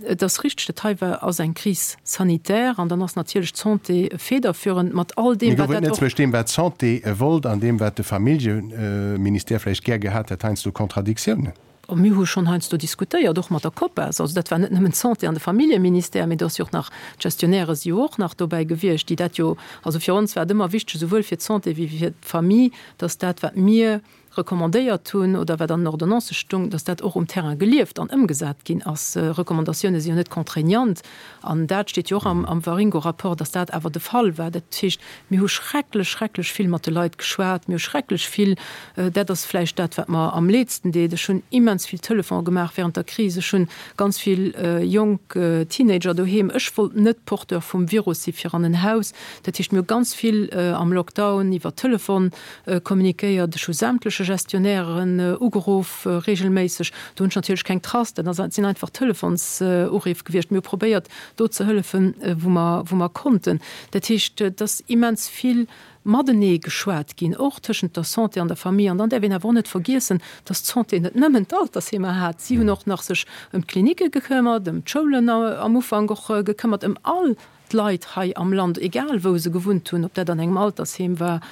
Et ass richteg, dat hei war, ass eng Crise sanitaire an dann ass natierlech d'Santé federführend mat all deem, Mee wat gouf et dat net och. zwëscht deem, wat d'Santé wollt an deem, wat de Familljeministère vläicht gär gehat hätt, heiansdo Kontradiktiounen? Mir hu schonn heiansdo diskutéiert, och mat der COPAS. Also dat war net nëmmen d'Santé an de Familljeministère, mee do ass jo och nach, d'Gestionnairë si jo och nach dobäi gewiescht, déi dat jo, also fir ons war et ëmmer wichteg, esouwuel fir d'Santé wéi fir d'Famille, dass dat, wat mir recommandéiert hunn oder wat an den Ordonnancë stung, dass dat och um Terrain gelieft an ëmgesat ginn ass. Recommandatioune si jo net contraignant an dat steet jo och am Waringo-Rapport, dass dat awer de Fall war. Dat heescht, mir hu schrecklech, schrecklech vill mat de Leit geschwat, mir hu schrecklech vill, dat ass vläicht dat, wat mer am leedsten deet, ech hunn immens vill Telefone gemaach während der Kris, ech hunn ganz vill jonk Teenager doheem, ech wollt net Porteur vum Virus si fir an en Haus. Dat heescht, mir hu ganz vill am Lockdown iwwer Telefon kommunikéiert. Ech hu sämtleche Gestionnairen ugeruff, regelméisseg. Do hunn ech natierlech keng Trace, dat ass, sinn einfach Telefonsureef gewiescht. Mir hu probéiert, do ze hëllefen, wou mer, wou mer konnten. Dat heescht, et ass immens vill matenee geschwat ginn, och tëschent der Santé an der Famille. An dann däerf een awer och net vergiessen, dass d'Santé net nëmmen d'Altersheemer hat. Si hunn och nach sech ëm d'Klinicke gekëmmert, ëm d'Schoulen am Ufank och gekëmmert, ëm all d'Leit hei am Land, egal wou se gewunnt hunn, ob dat an engem Altersheem war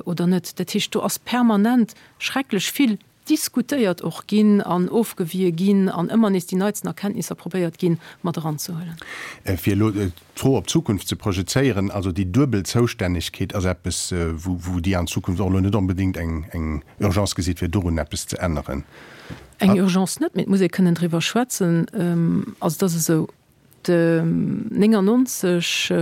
oder net. Dat heescht, do ass permanent schrecklech vill diskutéiert och ginn an ofgewie ginn an ëmmer nees déi neitsten Erkenntnisser probéiert ginn, mat eranzehuelen. Fir elo d'Fro op d'Zukunft ze projezéieren, also déi duebel Zoustännegkeet ass eppes, wou Dir an Zukunft och elo net onbedéngt eng Urgence gesitt, fir dorun eppes ze änneren. Eng Urgence net, mee et muss ee kënnen driwwer schwätzen. Also et ass esou, De 99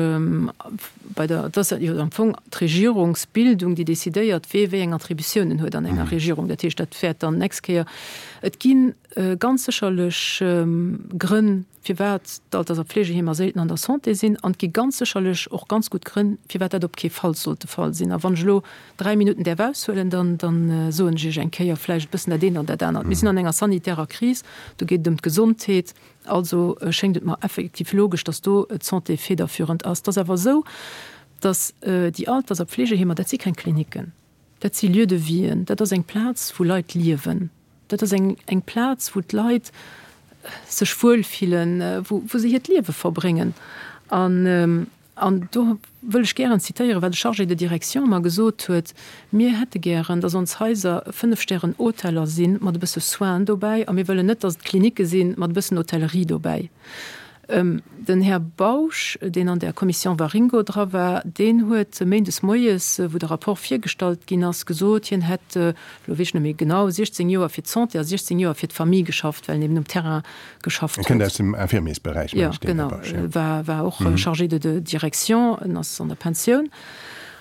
bei der, et ass jo am Fong d'Regierungsbildung, déi decidéiert, wee wéi eng Attributiounen huet an enger Regierung. Dat heescht, dat wäert dann d'nächst Kéier, et gi ganz sécherlech Grënn, firwat d'Alters a Pflegeheemer séilten an der Santé sinn, an et gi ganz sécherlech och ganz gutt Grënn, firwat dat op kee Fall sollt de Fall sinn. A wann ech elo 3 Minutten däerf aushuelen, dann, dann soen ech Iech eng Kéier vläicht e bëssen dat eent an dat anert. Mir sinn an enger sanitärer Kris, do geet et ëm d'Gesondheet. Also schéngt et mer effektiv logesch, dass do d'Santé federführend ass. Et ass awer esou, dass déi Alters a Pflegeheemer, dat si keng Klinicken, dat si Lieux de vien, dat ass eng Plaz, wou Leit liewen, dat ass eng eng Plaz, wou d'Leit sech wuelfillen, wou wou se hiert Liewe verbréngen. An An do wëll ech gären zitéieren, wat e Chargé de direction mer gesot huet, Mir hätte gären, dass ons Haiser Fënnef-Stären-Hoteller si mat e bësse Soins dobäi a mir wëllen net, dass et Klinicke si mat e bëssen Hotellerie dobäi. Den Här Bausch, deen an där Commission Waringo dra war, deen huet méindes moies, wou de Rapport virgestallt ginn ass, gesot, hien hätt, elo weess ech net méi genau, 16 Joer fir d'Santé a 16 Joer fir d'Famille geschafft, well en eben um Terrain geschafft huet. En kënnt aus dem Infirmiersberäich, mengen ech, deen Här Bausch, jo. War, war och Chargé de direction, en ass an der Pensioun.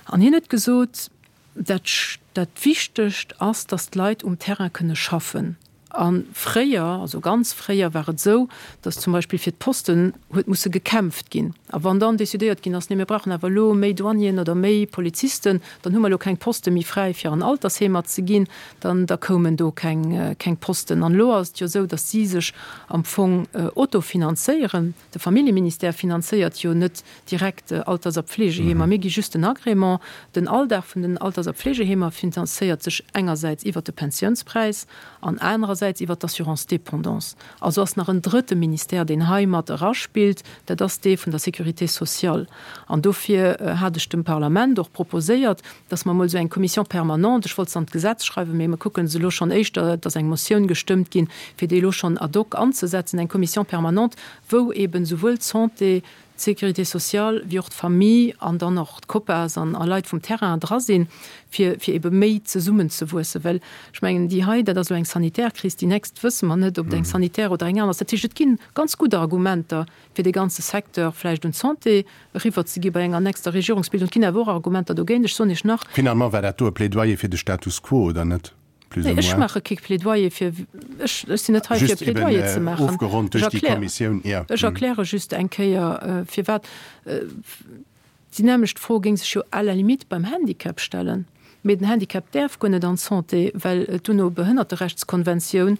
An hien huet gesot, dat, dat Wichtegst ass, datt d'Leit um Terrain kënne schaffen. A fréier, also ganz fréier war et esou, datt zum Beispill fir d'Posten huet musse gekämpft ginn. A wann dann decidéiert ginn ass, nee mir brauchen awer elo méi Douanieren oder méi Polizisten, dann hu mer elo keng Poste méi fräi fir an Altersheemer ze ginn, dann da koumen do keng keng Posten. An elo ass et jo esou, datt si sech am Fong autofinanzéieren. De Familljeministère finanzéiert jo net direkt Alters a Pflegeheemer. Mir gi just den Agrément. Den Alldag vun den Alters a Pflegeheemer finanzéiert sech engersäits iwwert de Pensiounspräis an anerersäits iwwert d'Assurance dépendance. Also ass nach en drëtte Ministère, deen hei mat eraspillt, dat ass dee vun der Sécurité sociale. An dofir hat ech dem Parlament och proposéiert, dass mer emol esou eng Commission permanente, ech wollt se an d'Gesetz schreiwen, mee mer kucken se elo schonn éischter, et ass eng Motioun gestëmmt ginn, fir déi elo schonn ad hoc anzesetzen, eng Commission permanente, wou eben souwuel d'Santé, d'Sécurité sociale wéi och d'Famille an dann och d'COPAS an a Leit vum Terrain dra sinn, fir, fir ebe méi zesummenzewuessen. Well ech mengen, déi hei, dat ass elo eng sanitär Kris, déi nächst wësse mer net, ob et eng sanitär oder eng aner ass. Dat heescht, et gi ganz gutt Argumenter, fir dee ganze Secteur vläicht un d'Santé eriwwer ze gi bei enger nächster Regierungsbildung. Et ginn awer och Argumenter dogéint. Ech soen Iech nach. Finalement war dat do e Plädoyer fir de Status quo, oder net? Plus ou moins. Ech maache kee Plädoyer fir, ech sinn net hei fir e Plädoyer ze maachen. Just eben ofgeronnt duerch déi Kommissioun, jo. Ech erkläre just eng Kéier, firwat. Déi nämmlecht Fro géing sech jo à la limite beim Handicap stellen. Mee den Handicap däerf guer net an d'Santé, well d'UNO-Behënnerterechtskonventioun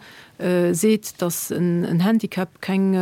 seet, datt en Handicap keng,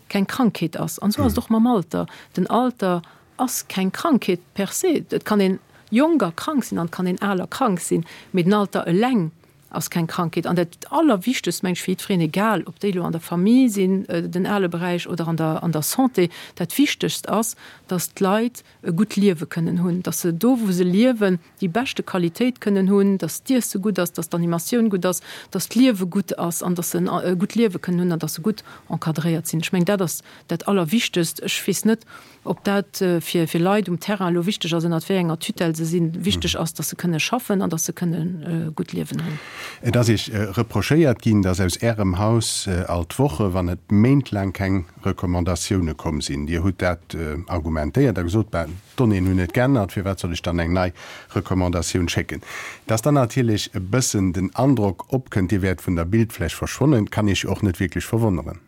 keng Krankheet ass. An esou ass et och mam Alter. Den Alter ass keng Krankheet per se. Et kann een jonk a krank sinn an et kann een al a krank sinn, mee den Alter eleng. ass keng Krankheet. An dat Allerwichtegst, meng ech, fir jiddwereen, egal ob déi elo an der Famille sinn, den ale Beräich, oder an der, an der Santé, dat Wichtegst ass, dass d'Leit e gutt Liewe kënnen hunn, dass se do, wou se liewen, déi beschte Qualitéit kënnen hunn, dass d'Iesse gutt ass, dass d'Animatioun gutt ass, dass d'Liewe gutt ass an dass se e gutt Liewe kënnen hunn an dass se gutt encadréiert sinn. Ech mengen, dat ass dat Allerwichtegst. Ech weess net, ob dat fir fir Leit um Terrain elo wichteg ass, ënnert wéi enger Tutelle se sinn. Wichteg ass, dass se kënne schaffen an dass se kënne e gutt Liewen hunn. Et ass Iech reprochéiert ginn, dass aus Ärem Haus all d'Woche, wann net méintlaang keng Recommandatioune komm sinn. Dir hutt dat argumentéiert a gesot, Ben, d'Donnéeën hunn net geännert, firwat soll ech dann eng nei Recommandatioun schécken? Dass dann natierlech e bëssen den Androck opkënnt, Dir wäert vun der Bildfläch verschwonnen, kann Iech jo och net wierklech verwonneren.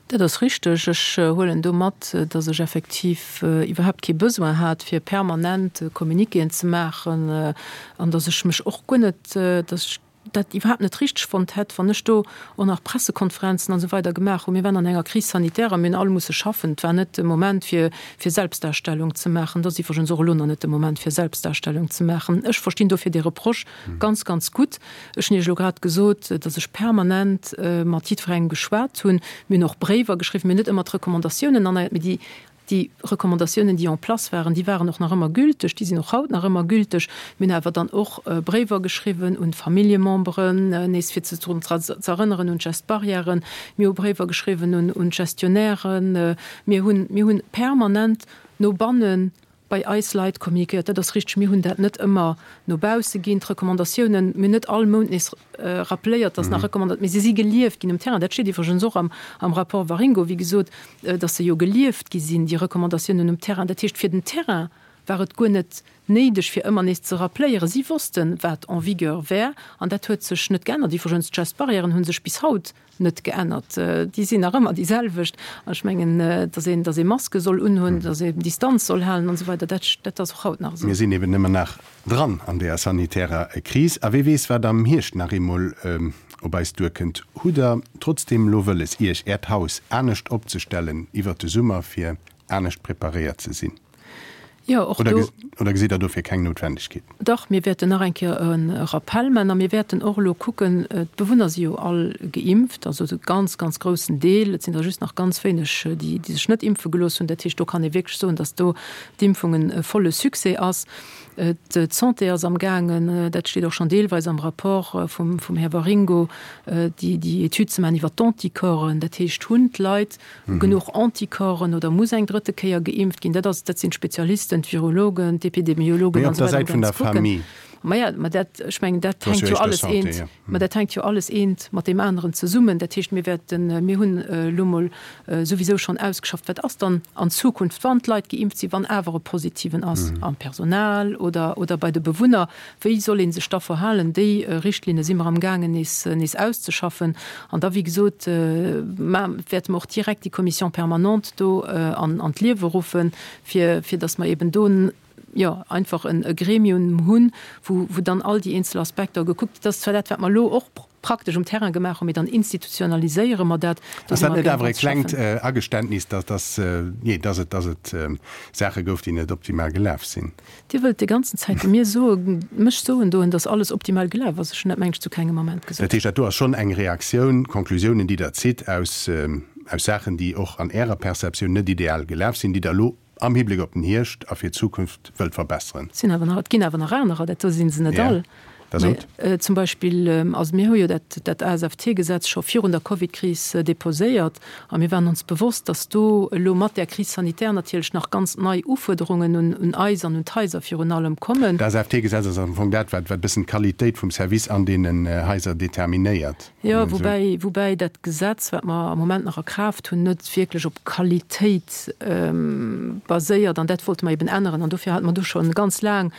Dat ass richteg. Ech huelen do mat, dass ech effektiv iwwerhaapt kee Besoin hat, fir permanent Communiquéen ze maachen an dass ech mech och guer net, dass ech dat iwwerhaapt net richteg fonnt hätt, wann ech do och nach Pressekonferenzen an esou weider gemaach hunn. Mir waren an enger Crise sanitaire a mir hunn all musse schaffen. Et war net de Moment, fir fir Selbstdarstellung ze maachen. Et ass iwwregens och elo nach net de Moment, fir Selbstdarstellung ze maachen. Ech verstinn dofir dee Reproche ganz, ganz gutt. Ech hunn Iech elo grad gesot, datt ech permanent mat jiddwerengem geschwat hunn. Mir hunn och Bréiwer geschriwwen. Mir hunn net ëmmer d'Recommandatiounen erneiert, mee déi Déi Recommandatiounen, déi en place waren, déi waren och nach ëmmer gülteg, déi sinn och haut nach ëmmer gülteg. Mir hunn awer dann och Bréiwer geschriwwen un d'Familljememberen, nees fir se drun ze erënneren un d'Gestes barrièren. Mir hu Bréiwer geschriwwen un d'Gestionnairen. Mir hunn, mir hunn permanent no banne bei eis Leit communiquéiert. Dat ass richteg, mir hunn dat net ëmmer no bausse ginn, d'Recommandatiounen. Mir hunn net all Mount nees rappeléiert, dass nach Recommandat, mee se si gelieft ginn um Terrain. Dat steet iwwregens och am, am Rapport Waringo, wéi gesot, dass se jo gelieft gi sinn, déi Recommandatiounen um Terrain. Dat heescht, fir den Terrain war et guer net néideg, fir ëmmer nees ze rappléieren. Si wossten, wat en vigueur wär, an dat huet sech net geännert. Iwwregens, d'Gestes-barrièren hu sech bis haut net geännert. Déi sinn nach ëmmer déi selwecht. An ech mengen, dass een, dass ee Maske soll unhunn, dass ee Distanz soll halen an esou weider, dat, dat ass och haut nach esou. Mir sinn eben ëmmer nach dran an deeër sanitärer Kris. A wee weess, wat am Hierscht nach eemol op eis duerkënnt. Hutt Der trotzdeem elo wëlles, Iech, Äert Haus anescht opzestellen iwwert de Summer, fir anescht preparéiert ze sinn? Jo, och do. Oder gesitt Der dofir keng Noutwendegkeet? Dach, mir wäerten nach eng Kéier e Rappell maachen a mir wäerten och elo kucken, d'Bewunner si jo all geimpft, also e ganz, ganz groussen Deel, et sinn der just nach ganz wéineg, déi sech net impfe gelooss hunn. Dat heescht, do kann ee wierklech soen, datt do d'Impfung e volle Succès ass. D'Santé ass amgaangen, dat steet och schonn deelweis am Rapport vum Här Waringo, déi Etüd ze maachen iwwert d'Anticorpsen. Dat heescht, hunn d'Leit genuch Anticorpsen oder muss eng drëtte Kéier geimpft ginn? Dat ass, dat sinn d'Spezialisten, d'Virologen, d'Epidemiologen an esou weider, déi ganz kucken. Maja, ma dat, ech mengen, dat hänkt jo alles eent, ma dat hänkt jo alles eent mat deem aneren zesummen. Dat heescht, mir wäerten, mir hunn elo mol souwisou schonn ausgeschafft, wat ass dann an Zukunft, wann d'Leit geimpft sinn, wann awer e Positiven ass am Personal oder, oder bei de Bewunner, wéi soll ee sech da verhalen? Déi Richtlinne si mer amgaangen nees, nees auszeschaffen. An da, wéi gesot, wäerte mer och direkt déi Commission permanente do an, an d'Liewe ruffen, fir, fir datt mer eben do, jo, einfach e Gremium hunn, wou, wou dann all déi eenzel Aspekter gekuckt, dat ass zwar dat, wat mer elo och praktesch um Terrain gemaach hunn, mee dann institutionaliséiere mer dat. Ass dat net awer e klengt Ageständnis, dass, dass, jee, dass et, dass et Saache gouf, déi net optimal gelaf sinn? Dir wëllt déi ganzen Zäit mir soen, mech soen doen, dass alles optimal gelaf ass. Ech hunn dat, meng ech, zu kengem Ament gesot. Dat heescht, dat do ass schonn eng Reaktioun, Konklusiounen, déi Der zitt aus, aus Saachen, déi och an Ärer Perceptioun net ideal gelaf sinn, déi Der elo am Hibléck op den Hierscht a fir d'Zukunft wëllt verbesseren. Et sinn awer nach, et ginn awer nach anerer, dat do si se net all. Da sot. Zum Beispill, also mir hu jo dat, dat ASFT-Gesetz scho virun der Covidkris deposéiert a mir waren ons bewosst, dass do elo mat där Crise sanitaire natierlech nach ganz nei Ufuerderungen un, un eis an un d'Haiser virun allem kommen. D'ASFT-Gesetz ass am Fong dat, wat, wat e bëssen d'Qualitéit vum Service an deenen Haiser determinéiert. Jo, woubäi, woubäi dat Gesetz, wat mer am Moment nach a Kraaft hunn, net wierklech op Qualitéit baséiert. An dat wollte mer eben änneren. An dofir hate mer do scho ganz laang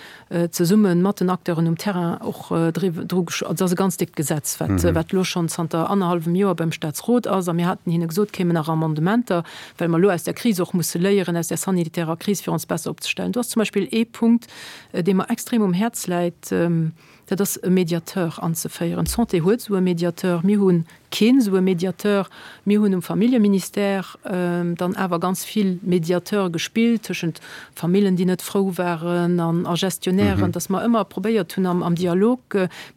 zesumme mat den Acteuren um Terrain och dru gesch-, also et ass e ganz déckt Gesetz, wat, wat elo schonn zanter annerhallwem Joer beim Statsrot ass. A mir haten hinne gesot, kéimen nach Amendementer, well mer elo aus der Kris och musse léieren, aus där sanitärer Kris, fir ons besser opzestellen. Do ass zum Beispill ee Punkt, dee mer extrem um Häerz läit. Dat ass e Mediateur anzeféieren. D'Santé huet esou e Mediateur, mir hu keen esou e Mediateur. Mir hunn um Familljeministère dann awer ganz vill Mediateur gespillt tëschent Famillen, déi net frou waren, an a Gestionnairen, datt mer ëmmer probéiert hunn am Dialog,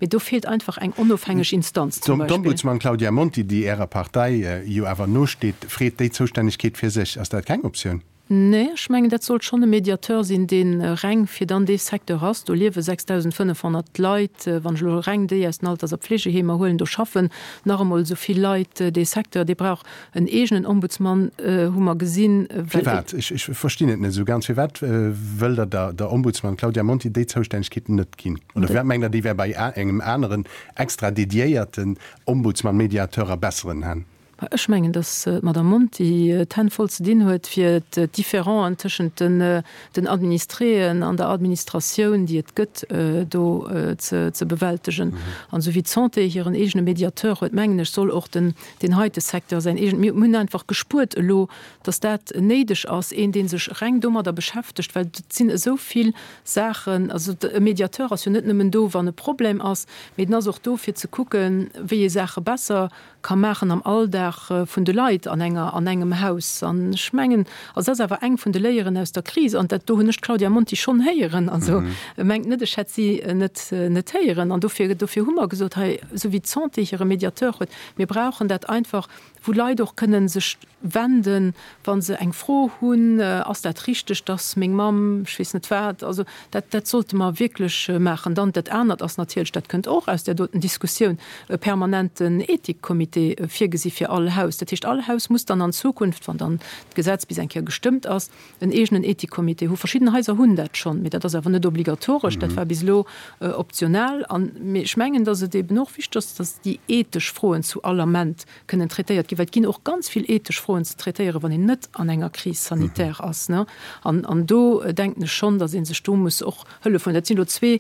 mee do feelt einfach eng onofhängeg Instanz zum Beispill. D'Ombudsman Claudia Monti, déi Ärer Partei jo awer nosteet, freet déi Zoustännegkeet fir sech. Ass dat keng Optioun? Nee, ech mengen, dat sollt schonn e Mediateur sinn, dee reng fir dann dee Secteur ass. Do liewe 6.500 Leit, wann ech elo reng déi aus den Alters a Pflegeheemer huelen, do schaffen nach emol esou vill Leit. Dee Secteur, dee brauch en eegenen Ombudsman, hu mer gesinn, well. Firwat? Ech verstinn et net esou ganz. Firwat wëllt Der der der Ombudsman Claudia Monti déi Zoustännegkeet net ginn? Oder firwat mengt Der, déi wär bei engem aneren extra dediéierten Ombudsman-Mediateur a besseren Hänn? Ech mengen, datt d'Madame Monti d'Hänn voll ze dinn huet, fir d'Differenten tëschent den Administréen an der Administratioun, déi et gëtt, do ze bewältegen. An esou wéi d'Santé hiren eegene Mediateur huet, mengen ech, soll och deen heite Secteur säin eegenen. Mir hunn einfach gespuert elo, datt dat néideg ass, een, dee sech reng domadder beschäftegt, well et sinn esou vill Saachen. Also e Mediateur ass jo net nëmmen do, wann e Problem ass, mee en ass och do, fir ze kucken, wéi ee Saache besser ka maachen am Alldag vun de Leit an enger, an engem Haus. An ech mengen, also dat ass awer eng vun de Léieren aus der Kris, an dat do hunn ech d'Claudia Monti schonn héieren, also mengt net, ech hätt si net, net héieren. An dofir, dofir hu mer gesot, hei, esou wéi d'Santé hire Mediateur huet, mir brauchen dat einfach, wou Leit och kënnen sech wenden, wa se eng Fro hunn, Ass dat richteg, dass meng Mamm, ech weess net wat. Also dat, dat sollte mer wierklech maachen. Dann dat anert ass natierlech, dat kënnt och aus där doten Diskussioun, e permanenten Ethikcomité virgesi fir all Haus. Dat heescht, all Haus muss dann an Zukunft, wann dann d'Gesetz bis eng Kéier gestëmmt ass, en eegenen Ethikcomité hu. Verschidden Haiser hunn dat schonn, mee dat ass awer net obligatoresch, dat war bis elo optional. An, mee ech mengen, dass et eben och wichteg ass, dass déi ethesch Froen zu all Ament kënnen traitéiert ginn, well et ginn och ganz vill ethesch Froen ze traitéieren, wann een net an enger Crise sanitaire ass. An, an do denken ech schonn, datt ee sech do muss och Hëllef huelen. Dat sinn elo zwee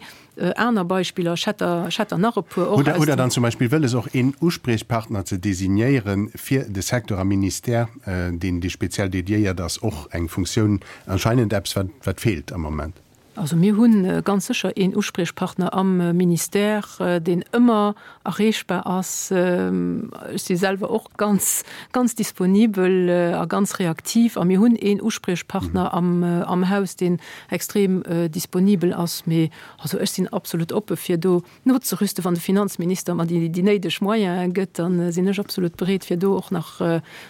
aner Beispiller. Ech hätt der, ech hätt der nach e puer och aus dem. Hutt Der dann zum Beispill wëlles, och een Uspriechpartner ze designéieren fir de Secteur am Ministère, deen dee speziell dediéiert ass, och eng Funktioun, anscheinend eppes, wat, wat feelt am Moment? Also mir hu ganz sécher een Uspriechpartner am Ministère, deen ëmmer erreechbar ass. Ech si selwer och ganz, ganz disponibel a ganz reaktiv. A mir hunn een Uspriechpartner am Haus, deen extrem disponibel ass. Mee also ech sinn absolut oppe fir do nozerüsten. Wann de Finanzminister mer déi néideg Moyene gëtt, da sinn ech absolut bereet, fir do och nach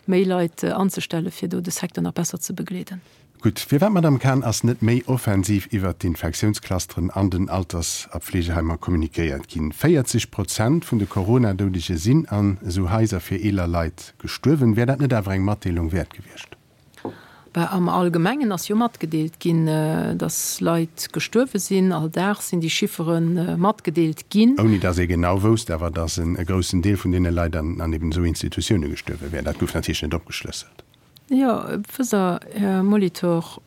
méi Leit anzestellen, fir do de Secteur nach besser ze begleeden. Gutt, firwat, Madamm Cahen, ass net méi offensiv iwwert d'Infektiounsclusteren an den Alters a Pflegeheimer kommunikéiert ginn? 40 Prozent vun de Corona-Doudege sinn an esou Haiser fir eeler Leit gestuerwen. Wär dat net awer eng Matdeelung wäert gewiescht? Bah, am Allgemengen ass jo matgedeelt ginn, datt Leit gestuerwe sinn. All Dag sinn déi Chiffere matgedeelt ginn. Ouni datt ee genau wousst awer, datt e groussen Deel vun deene Leit an eben esou Institutioune gestuerwe wär. Dat gouf natierlech net opgeschlësselt. Jo, wësst Der, Här Molitor,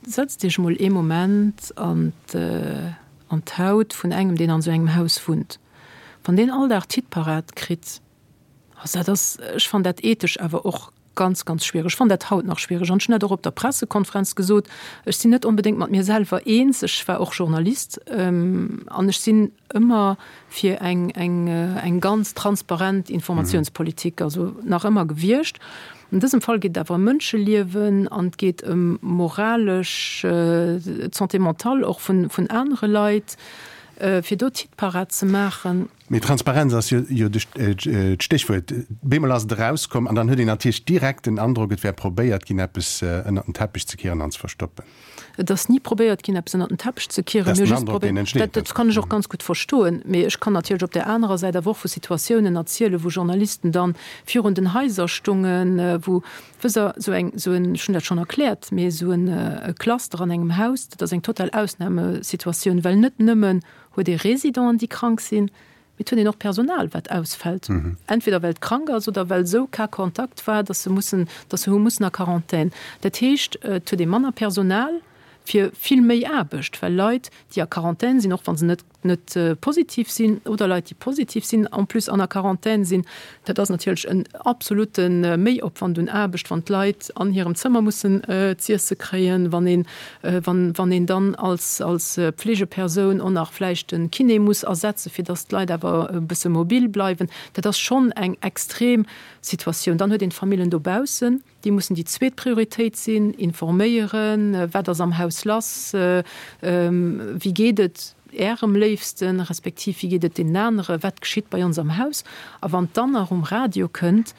setzt Iech emol ee Moment an d'Haut vun engem, deen an esou engem Haus wunnt. Wann deen all Dag d'Hit-Parade kritt, also dat ass, ech fannen dat ethesch awer och ganz, ganz schwiereg. Ech fannen dat haut nach schwiereg an ech hunn dat och op der Pressekonferenz gesot, Ech sinn net onbedéngt mat mir selwer eens. Ech war och Journalist an ech sinn ëmmer fir eng, eng, eng ganz transparent Informatiounspolitik, also nach ëmmer gewiescht. An dësem Fall geet et awer ëm Mënscheliewen an et geet ëm moralesch, d'Santé mentale och vun, vun anere Leit, fir do d'Hitparad ze maachen. Mee Transparenz ass jo, jo d'Stéchwuert. Bemol ass et erauskomm an dann huet een natierlech direkt den Androck, et wär probéiert ginn, eppes ënnert den Teppech ze kieren an ze verstoppen. Et ass ni probéiert ginn, eppes ënnert den Teppech ze kieren. Mir hu just probéiert, dat kann ech och ganz gutt verstoen, mee ech kann natierlech op där anerer Säit awer och vu Situatiounen erzielen, wou Journalisten dann virun den Haiser stungen, wou, wësst Der, esou eng, esou en, ech hunn dat schonn erkläert, mee esou en Cluster an engem Haus, dat ass eng total Ausnamesituatioun, well net nëmmen huet ee Résidenten, déi krank sinn, Mee et huet een och Personal, wat ausfält, entweder well et krank ass oder well esou Cas contact war, dass se mussen, dass se hu mussen a Quarantän. Dat heescht, et huet ee manner Personal fir vill méi Aarbecht, well Leit, déi a Quarantän sinn, och wa se net. net positiv sinn oder Leit, déi positiv sinn, en plus an der Quarantän sinn. Dat ass natierlech en absolute Méiopwand un Aarbecht, wann d'Leit an hirem Zëmmer mussen z'iesse kréien, wann een, wann een dann als, als Pflegepersoun och nach vläicht de Kiné muss ersetzen, fir dass d'Leit awer e bësse mobil bleiwen. Dat ass schonn eng extrem Situatioun. Dann huet een d'Famillen dobaussen. Déi mussen déi zweet Prioritéit sinn, informéieren, wat ass am Haus lass, wéi geet et Ärem Léifsten, respektiv wéi geet et deenen anere, wat geschitt bei ons am Haus. A wann dann nach um Radio kënnt,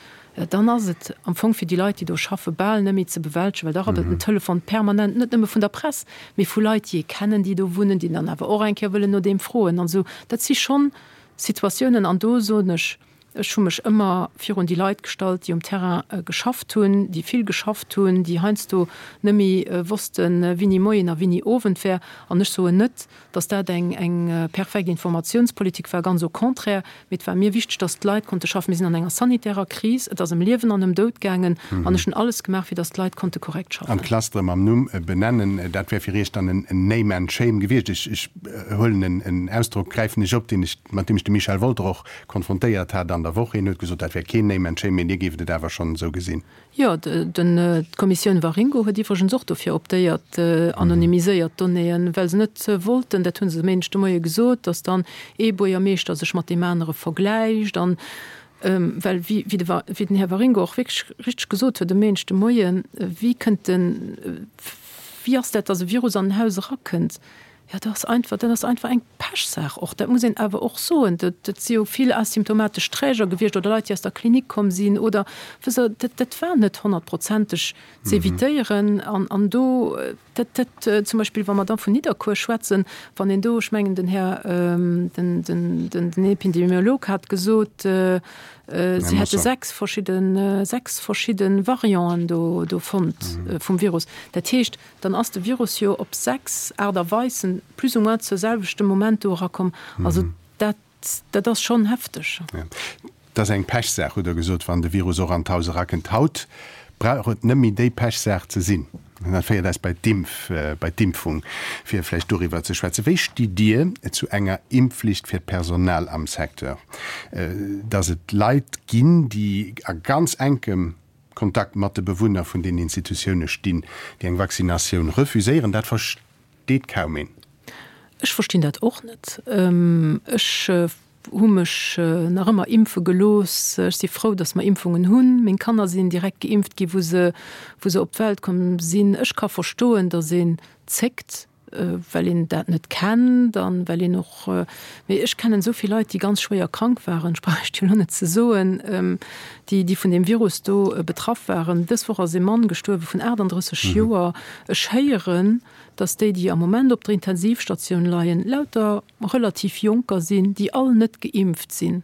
dann ass et am Fong fir déi Leit, déi do schaffen, bal net méi ze bewältegen, well da rabbelt den Telefon permanent, net nëmme vun der Press, mee vu Leit, déi ee kennen, déi do wunnen, déi dann awer och eng Kéier wëllen no deem froen an esou. Dat si schonn Situatiounen, an do soen ech, Ech hu mech ëmmer virun déi Leit gestallt, déi um Terrain geschafft hunn, déi vill geschafft hunn, déi heiansdo net méi wossten, wini Moien a wini Owend wär. An ech soen net, datt dat eng eng perfekt Informatiounspolitik war, ganz au contraire, mee et war mir wichteg, datt d'Leit konnte schaffen. Mir sinn an enger sanitärer Kris, et ass ëm Liewen an ëm Doud gaangen an ech hunn alles gemaach, fir datt d'Leit konnte korrekt schaffen. An d'Clustere mam Numm benennen, dat wär fir Iech dann en Name and Shame gewiescht. Ech huelen en Ausdrock, gräifen ech op, deen ech, mat deem ech de Michel Wolter och konfrontéiert hat an der Woch. Hien huet gesot, dat wär keen Name and Shame, mee Dir géift et awer schonn esou gesinn. Jo, d'Kommissioun Waringo huet iwwregens och dofir optéiert, anonymiséiert Donnéeën, well se net wollten, dat hu se e Méindeg de Moie gesot, datt dann ee Buergermeeschter sech mat deem anere vergläicht. An well, wéi den Här Waringo och wierklech richteg gesot huet e Méindeg de Moien, wéi kënnt den, wéi ass dat, datt e Virus an en Haus erakënnt? Jo, dat ass einfach, dat ass einfach eng Pechsaach och. Dat muss een awer och soen. Dat, dat si jo vill asymptomatesch Träger gewiescht oder Leit, déi aus der Klinik komm sinn oder, wësst Der, dat, dat war net honnertprozenteg ze evitéieren. An, an do, dat, dat zum Beispill, wa mer da vun Nidderkuer schwätzen, wann een do, ech mengen, den Här, den, den, den, den Epidemiolog hat gesot, si hätte sechs verschidden, sechs verschidde Varianten do, do fonnt vum Virus. Dat heescht, Dann ass de Virus jo op 6 Aart a Weisen plus ou moins zur selwechten Moment do erakomm. Also dat, dat ass schonn hefteg. Ja. Et ass eng Pechsaach, hutt Der gesot, wann de Virus och an d'Haus erakënnt. Haut brauch et net méi déi Pechsaach ze sinn. An dat féiert eis bei d'Impf, bei d'Impfung, fir vläicht doriwwer ze schwätzen. Wéi stitt Dir zu enger Impfflicht fir d'Personal am Secteur? Datt et Leit ginn, déi a ganz enkem Kontakt mat de Bewunner vun den Institutioune stinn, déi eng Vaccinatioun refuséieren, dat versteet kaum een. Ech verstinn dat och net. Ech hu mech nach ëmmer impfe gelooss. Ech si frou, datt mer Impfungen hunn. Meng Kanner sinn direkt geimpft gi wou se wou se op d'Welt komm sinn. Ech ka verstoen, datt een zéckt. well een dat net kennt an well een och, mee ech kennen esou vill Leit, déi ganz schwéier krank waren, ech brauch Iech jo elo net ze soen, déi, déi vun deem Virus do betraff waren. Dës Woch ass ee Mann gestuerwe vun 38 Joer. Ech héieren, datt déi, déi am Moment op der Intensivstatioun leien, lauter relativ Jonker sinn, déi all net geimpft sinn.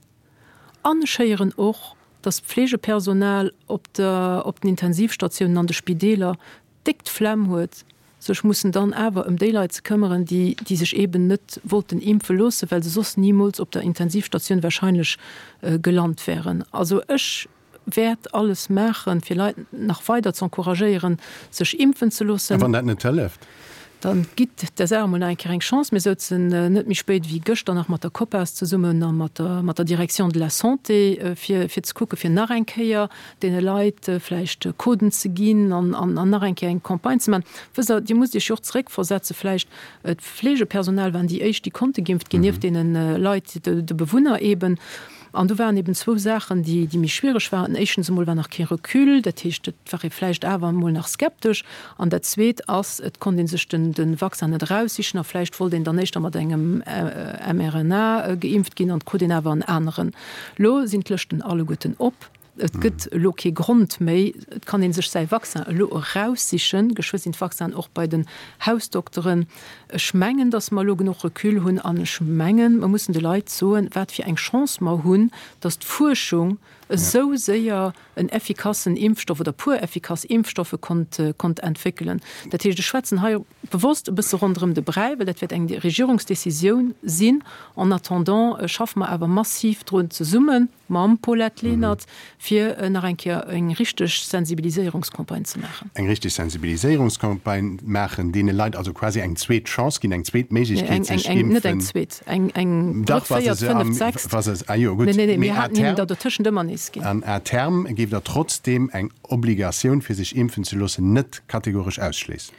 An ech héieren och, datt d'Pflegepersonal op der, op den Intensivstatiounen an de Spideeler déck d'Flemm huet, sech mussen dann awer ëm déi Leit ze këmmeren, déi, déi sech eeben net wollten impfe loossen, well se soss nimools op der Intensivstatioun wahrscheinlech gelant wären. Also ech wäert alles maachen, fir Leit nach weider ze encouragéieren, sech impfen ze loossen. A wann dat net hëlleft? Dann gitt der Saach emol nach eng Kéier eng Chance. Mir souzen net méi spéit wéi gëschter nach mat der COPAS zesummen a mat der, mat der Direction de la Santé, fir, fir ze kucken, fir nach eng Kéier deene Leit vläicht Coden ze ginn an, an, an nach eng Kéier eng Campagne ze maachen. Wësst Der, Dir musst Iech jo och zeréckversetze vläicht, d'Fleegepersonal waren déi éischt, déi konnte geimpft ginn, nieft deene Leit, de, de Bewunner eeben. An do waren eben zwou Saachen, déi, déi méi schwiereg waren. Éischtens emol war nach kee Recul, dat heescht, et war ee vläicht awer emol nach skeptesch. An dat Zweet ass, et konnt ee sech den, de Vaccin net eraussichen a vläicht wollt een dann éischter mat engem mRNA geimpft ginn an et krut een awer en aneren. Lo sinn d'Lëschten alleguerten op. Et gëtt elo kee Grond méi. Et kann ee sech säi Vaccin elo eraussichen. Geschwë sinn d'Vaccinen och bei den Hausdokteren. Ech mengen, datt mer elo genuch Recul hunn an ech mengen, mer mussen de Leit soen, wat fir eng Chance mer hunn, datt d'Fuerschung. esou séier en effikassen Impfstoff oder puer effikass Impfstoffe konnt, konnt entwéckelen. Dat heescht, ech schwätzen hei bewosst e bësse ronderëm de Bräi, well dat wäert eng Regierungsdecisioun sinn. En attendant schaffe mer awer massiv drun zesumme mam Paulette Lenert, fir nach eng Kéier eng richteg Sensibiliséierungscampagne ze maachen. Eng richteg Sensibiliséierungscampagne maachen, deene Leit also quasi eng zweet Chance ginn, eng zweet Méiglechkeet sech impfen. Net eng zweet, eng eng drëtt, véiert, fënneft, sechst. Ah jo, gutt. Nee, nee, mir haten hinnen der dotëschent ëmmer nees ginn. An à terme géif Der trotzdeem eng Obligatioun fir sech impfen ze loossen net kategoresch ausschléissen?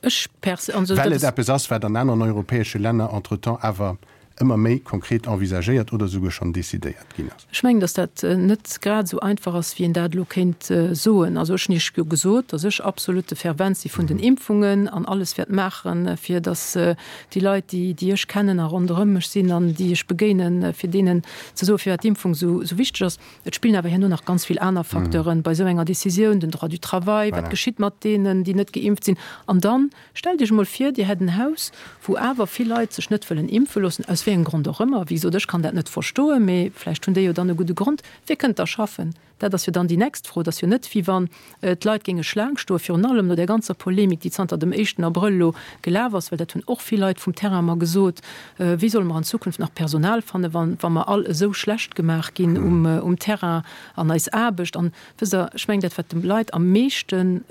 Ech pers. Well et eppes ass, wat an aneren europäesche Länner entretemps awer ëmmer méi konkret envisagéiert oder esouguer schonn decidéiert ginn ass. Ech mengen, datt dat net grad esou einfach ass, wéi een dat elo kéint soen. Also ech hunn Iech jo gesot, datt ech absolut de Fervent si vun den Impfungen an alles wäert maachen, fir datt déi Leit, déi, déi ech kennen a ronderëm mech sinn an déi ech begéinen, fir deenen ze soen, firwat d'Impfung esou wichteg ass. Et spillen awer herno nach ganz vill aner Facteuren bei esou enger Décisioun, den Droit du travail, wat geschitt mat deenen, déi net geimpft sinn. An dann, stellt Iech emol vir, Dir hätt en Haus, wou awer vill Leit sech net wëllen impfe loossen, aus wéi engem Grond och ëmmer, wéi gesot, ech kann dat net verstoen, mee vläicht hunn déi jo dann e gudde Grond, wie kënnt da schaffen? Dat ass jo dann déi nächst Fro. Et ass jo net, wéi wann d'Leit géinge Schlaang stoen, virun allem no där ganzer Polemik, déi zanter dem éischten Abrëll elo gelaf ass, well dat hunn och vill Leit vum Terrain mer gesot, Wéi solle mer an Zukunft nach Personal fannen, wa wa mer all esou schlecht gemaach ginn um um Terrain an eis Aarbecht? An, wësst Der, ech mengen, dat wat de Leit am meeschte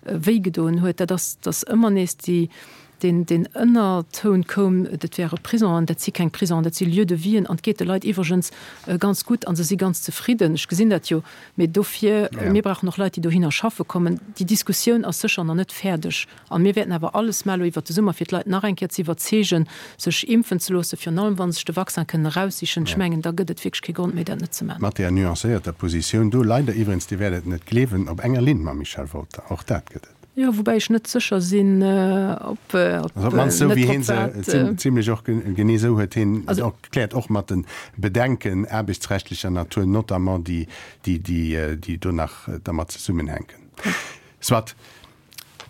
wéigedoen huet, dat ass, datt ëmmer nees déi, deen, deen Ënnertoun koum, dat wäre Prisonen. Dat si keng Prisonen, dat si Lieux de vie-en an et geet de Leit iwwregens ganz gutt a se si ganz zefridden. Ech gesinn dat jo. Mee dofir, mir brauchen och Leit, déi dohinner schaffe kommen. Déi Diskussioun ass sécher nach net fäerdeg. A mir wäerten awer alles maachen elo iwwert de Summer, fir d'Leit nach eng Kéier ze iwwerzeegen, sech impfen ze loossen, virun allem wa se sech de Vaccin kënnen eraussichen. Ech mengen, da gëtt et wierklech kee Grond méi, dat net ze maachen. Mat där nuancéierter Positioun do, leider iwwregens, Dir wäert et net gleewen, op enger Linn mam Michel Wolter. Och dat gëtt et. Jo, woubäi ech net sécher sinn, ob Also op d'mannst esou wéi hien se, zimlech och genee esou huet hien et och erkläert, och mat de Bedenken aarbechtsrechtlecher Natur notamment, déi, déi, déi do nach dermat zesummenhänken. Soit.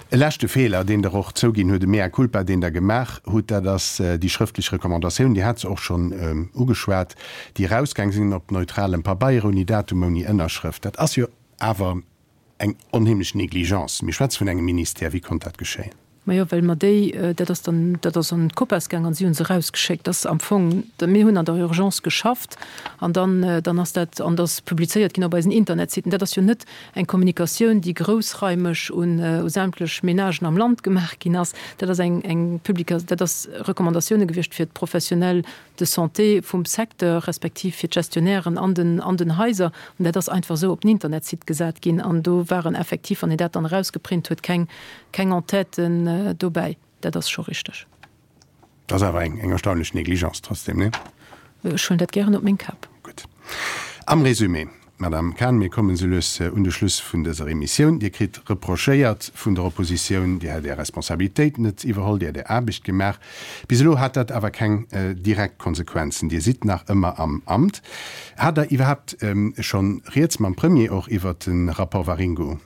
E leschte Feeler, deen Der och zouginn hutt, e Mea culpa, deen Der gemaach hutt, dat ass déi schrëftlech Recommandatioun, Dir hat se och schonn ugeschwat, déi erausgaang sinn op neutralem Pabeier, ouni Datum, ouni Ënnerschrëft. Dat ass jo awer eng onheemlech Négligence. Mir schwätze vun engem Ministère. Wéi konnt dat geschéien? Majo, well mer déi, dat ass dann, dat ass an d'Copas gaang an si hu se erausgeschéckt. Dat ass am Fong, mir hunn an der Urgence geschafft an dann, dann ass dat, an dat ass publizéiert ginn op eisen Internetsiten. Dat ass jo net eng Kommunikatioun, déi groussraimeg un sämtlech Menagen am Land gemaach ginn ass. Dat ass eng, eng Publika, dat ass Recommandatioune gewiescht fir d'Professionnels de santé vum Secteur, respektiv fir d'Gestionnairen an den, an den Haiser. An dat ass einfach esou op den Internetsite gesat ginn. An do waren effektiv, wann een dat dann erausgeprint huet, keng, keng Entêten dobäi. Dat ass scho richteg. Dat ass awer eng, eng erstaunlech Négligence trotzdem, nee? Ech huelen dat gären op meng Kap. Gutt. Am Résumé, Madame Cahen, mir kommen esou lues un de Schluss vun dëser Emissioun. Dir kritt reprochéiert vun der Oppositioun, Dir hätt Är Responsabilitéit net iwwerholl, Dir hätt Är Aarbecht gemaach. Bis elo hat dat awer keng direkt Konsequenzen. Dir sidd nach ëmmer am Amt. Hat Der iwwerhaapt schonn Rieds mam Premier och iwwert de Rapport Waringo?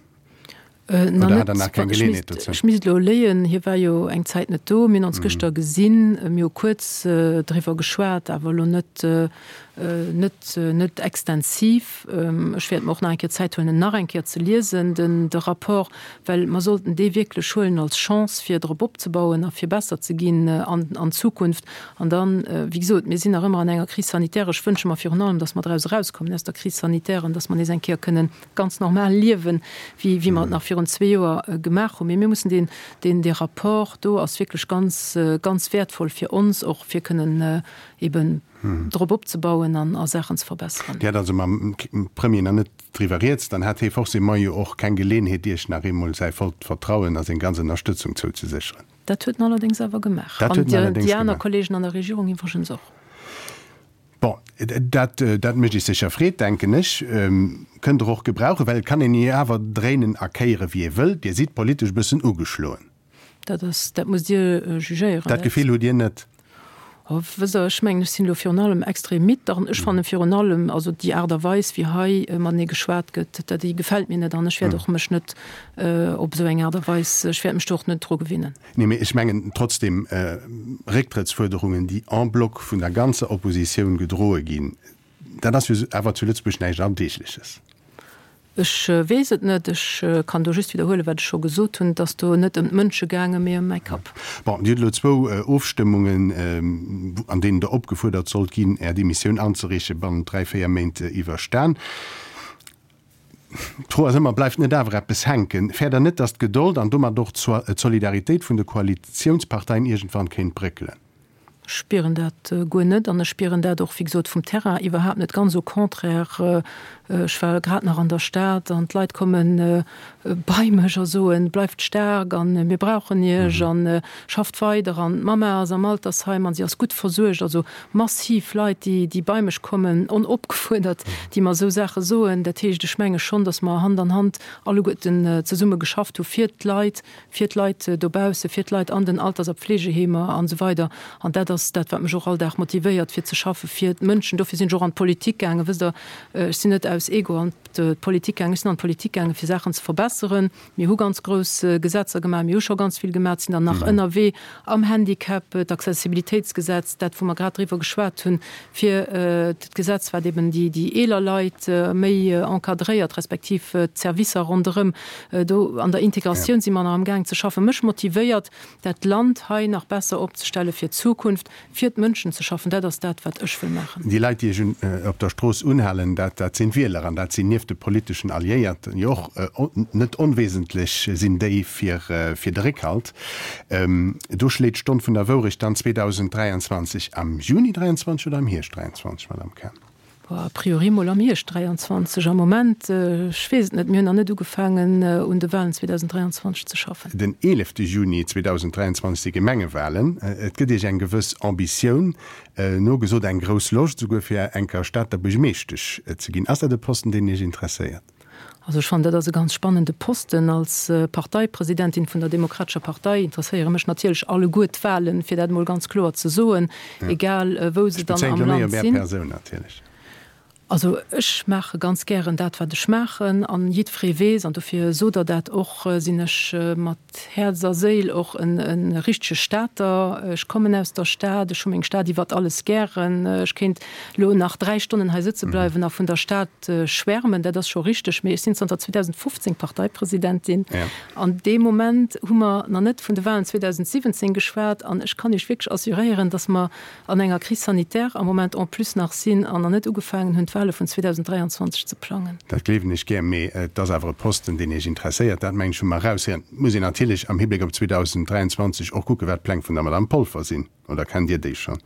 Oder hat Der nach keng Geleeënheet dozou? Ech misst elo léien. Hie war jo eng Zäit net do. Mir hunn ons gëschter gesinn. Mir hu kuerz driwwer geschwat, awer elo net, net, net extensiv. Ech wäert mer och nach eng Kéier Zäit huelen, en nach eng Kéier ze liesen, den, de Rapport, well mer sollten dee wierklech huelen als Chance, fir drop opzebauen a fir besser ze ginn an, an Zukunft. An dann, wéi gesot, mir sinn nach ëmmer an enger Crise sanitaire. Ech wënsche mer virun allem, datt mer draus erauskommen aus der Crise sanitaire an datt mer nees eng Kéier kënnen ganz normal liewen, wéi, wéi mer et nach virun zwee Joer gemaach hunn. Mee mir mussen deen, deen, dee Rapport do ass wierklech ganz, ganz wäertvoll fir ons och, fir kënnen eben drop opzebauen an a Saachen ze verbesseren. Dir hat also mam Premier nach net driwwer rieds. Dann hat hee forcément jo och keng Geleenheet, Iech nach eemol säi vollt Vertrauen a seng ganz Ënnerstëtzung zouzesécheren. Dat huet en allerdéngs awer gemaach. Dat huet en allerdéngs gemaach. An déi aner Kollegen an der Regierung iwwregens och. Bon, dat, dat mécht Iech sécher Freed, denken ech. Kënnt Der och gebrauchen, well et kann een jo awer dréinen a kéieren, wéi ee wëll. Dir sidd politesch e bëssen ugeschloen. Dat ass, dat musst Dir jugéieren. Dat Gefill hutt Dir net? Oh, wësst Der, ech mengen, ech sinn elo virun allem extrem midd an ech fanne virun allem, also déi Aart a Weis, wéi hei matenee geschwat gëtt, dat, déi gefält mir net an ech wäert och mech net op esou eng Aart a Weis, ech wäert mech do och net dru gewinnen. Nee, mee ech mengen trotzdem, Récktrëttsfuerderungen, déi en bloc vun der ganzer Oppositioun gedroe ginn. Dat ass jo awer zu Lëtzebuerg näischt Alldeegleches. Ech weess et net. Ech kann do just widderhuelen, wat ech scho gesot hunn. Et ass do net ëm d'Mënsche gaangen, mee ëm mäi Kapp. Bon, Dir hutt elo zwou Ofstëmmungen, an deenen Der opgefuerdert sollt ginn, Är Demissioun anzereechen, bannent dräi, véier Méint iwwerstan. D'Fro ass ëmmer, Bleift net awer eppes hänken? Fäert Der net, datt d'Gedold an domat och d'Solidaritéit vun de Koalitiounsparteien iergendwann kéint bréckelen? Ech spieren dat guer net an ech spieren dat och, wéi gesot, vum Terrain iwwerhaapt net. Ganz au contraire, ech war grad nach an der Stad an d'Leit komme bei mech a soen, Bleift staark a mir brauchen Iech a schafft weider an d'Mamma ass am Altersheim an si ass gutt versuergt. Also massiv Leit, déi bei mech kommen, onopgefuerdert, déi mer esou Saache soen. Dat heescht, ech menge schonn, datt mer Hand an Hand alleguerten zesumme geschafft hu fir d'Leit, fir d'Leit dobaussen, fir d'Leit an den Alters a Pflegeheemer an esou weider. An dat ass dat, wat mech och all Dag motivéiert, fir ze schaffen fir d'Mënschen. Dofir sinn ech och an d'Politik gaangen. Wësst Der, ech sinn net aus Ego an d'Politik gaangen, ech sinn an d'Politik gaangen, fir Saachen ze verbesseren. Mir hu ganz grouss Gesetzer gemaach, mir hu scho ganz vill gemaach, sinn der nach ënnerwee am Handicap, d'Accessibilitéitsgesetz, dat, wou mer grad driwwer geschwat hunn, fir d'Gesetz, wat eben déi eeler Leit méi encadréiert, respektiv d'Servicer ronderëm. Do an der Integratioun si mer nach amgaang ze schaffen. Mech motivéiert, dat Land hei nach besser opzestelle fir d'Zukunft, fir d'Mënschen ze schaffen. Dat ass dat, wat ech wëll maachen. Déi Leit, déi Iech op der Strooss unhalen, dat sinn d'Wieler an dat sinn nieft de politeschen Alliéierten jo och net onwesentlech sinn déi fir de Réckhalt. Do schléit d'Stonn vun der Wourecht dann 2023 am Juni 23 oder am Hierscht 23, Madame Cahen? A priori mol am Hierscht 23. Am Moment, ech weess et net, mir hunn nach net ugefaangen un de Wahlen 2023 ze schaffen. Den 11 Juni 2023 si Gemengewahlen. Et gëtt Iech eng gewëss Ambitioun nogesot, eng grouss Loscht esouguer fir enker Stater Buergermeeschtesch ze ginn. Ass dat e Posten, deen Iech interesséiert? Also ech fannen, dat ass e ganz spannende Posten. Als Parteipresidentin vun der Demokratescher Partei interesséiere mech natierlech alleguer d'Wahlen, fir dat emol ganz kloer ze soen, egal wou se dann am Land sinn. Also ech maache ganz gären dat, wat ech maachen, an jiddweree weess, an dofir sot Der dat och, sinn ech mat Häerz a Séil och e richtege Stater. Ech kommen aus der Stad, ech hu meng Stad iwwert alles gären. Ech kéint elo nach 3 Stonnen hei sëtze bleiwen a vun der Stad schwärmen, dat ass scho richteg. Mee ech sinn zanter 2015 Parteipresidentin. An dee Moment hu mer nach net vun de Wahlen 2017 geschwat. An ech kann Iech wierklech assuréieren, datt mer an enger Crise sanitaire am Moment en plus nach sinn an nach net ugefaangen hunn, d'Wahle vun 2023 ze plangen. Dat gleewen ech gär, mee et ass awer e Posten, deen Iech interesséiert, dat mengen ech hu mer eraushéieren. Et muss een natierlech am Hibléck op 2023 och kucken, wat d'Pläng vun der Madame Polfer sinn. Oder kennt Dir déi schonn?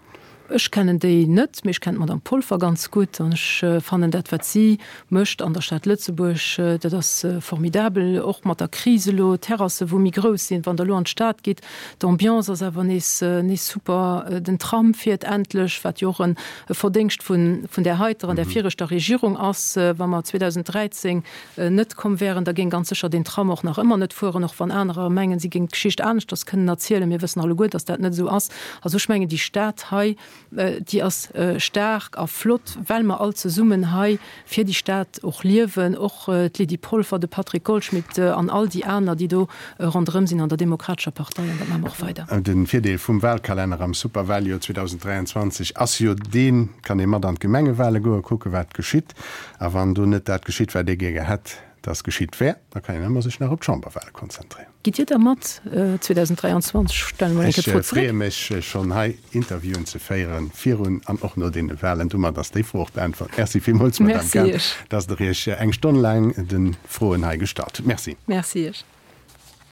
Ech kennen déi net, mee ech kennen d'Madame Polfer ganz gutt an ech fannen dat, wat si mécht an der Stad Lëtzebuerg, dat ass formidabel. Och mat der Kris elo, d'Terrassen, wou méi grouss sinn, wann Der elo an d'Stad gitt, D'Ambiance ass awer nees nees super. Den Tram fiert endlech, wat jo och e Verdéngscht vun vun där heiter an där viregter Regierung ass. Wa mer 2013 net komm wären, da géing ganz sécher deen Tram och nach ëmmer net fueren, och wann anerer mengen, si géingen d'Geschicht aneschters kënnen erzielen. Mir wëssen alleguer, datt dat net esou ass. Also ech mengen, déi Stad hei, Déi ass staark a flott, well mer all zesummen hei fir déi Stad och liewen, och d'Lydie Polfer, de Patrick Goldschmidt an all déi aner, déi do ronderëm sinn an der Demokratescher Partei. An dat maache mer och weider. De Virdeel vum Wahlkalenner am Superwahljoer 2023 ass jo deen, et kann ee mat an d'Gemengewale goen, kucken, wat geschitt. A wann do net dat geschitt, wat ee gäre hätt, dass geschitt wär, da kann een ëmmer sech nach op d'Chamberwahle konzentréieren. Gitt Dir da mat 2023? Stelle mer eng Kéier d'Fro zeréck. Ech freeë mech schonn hei Interviewen ze féieren, virun an och no deene Wahlen. Domat ass déi Fro och beäntwert. Merci villmools, Madame Cahen, dass Der Iech eng Stonn laang de Froen hei gestallt hutt. Merci. Merci Iech.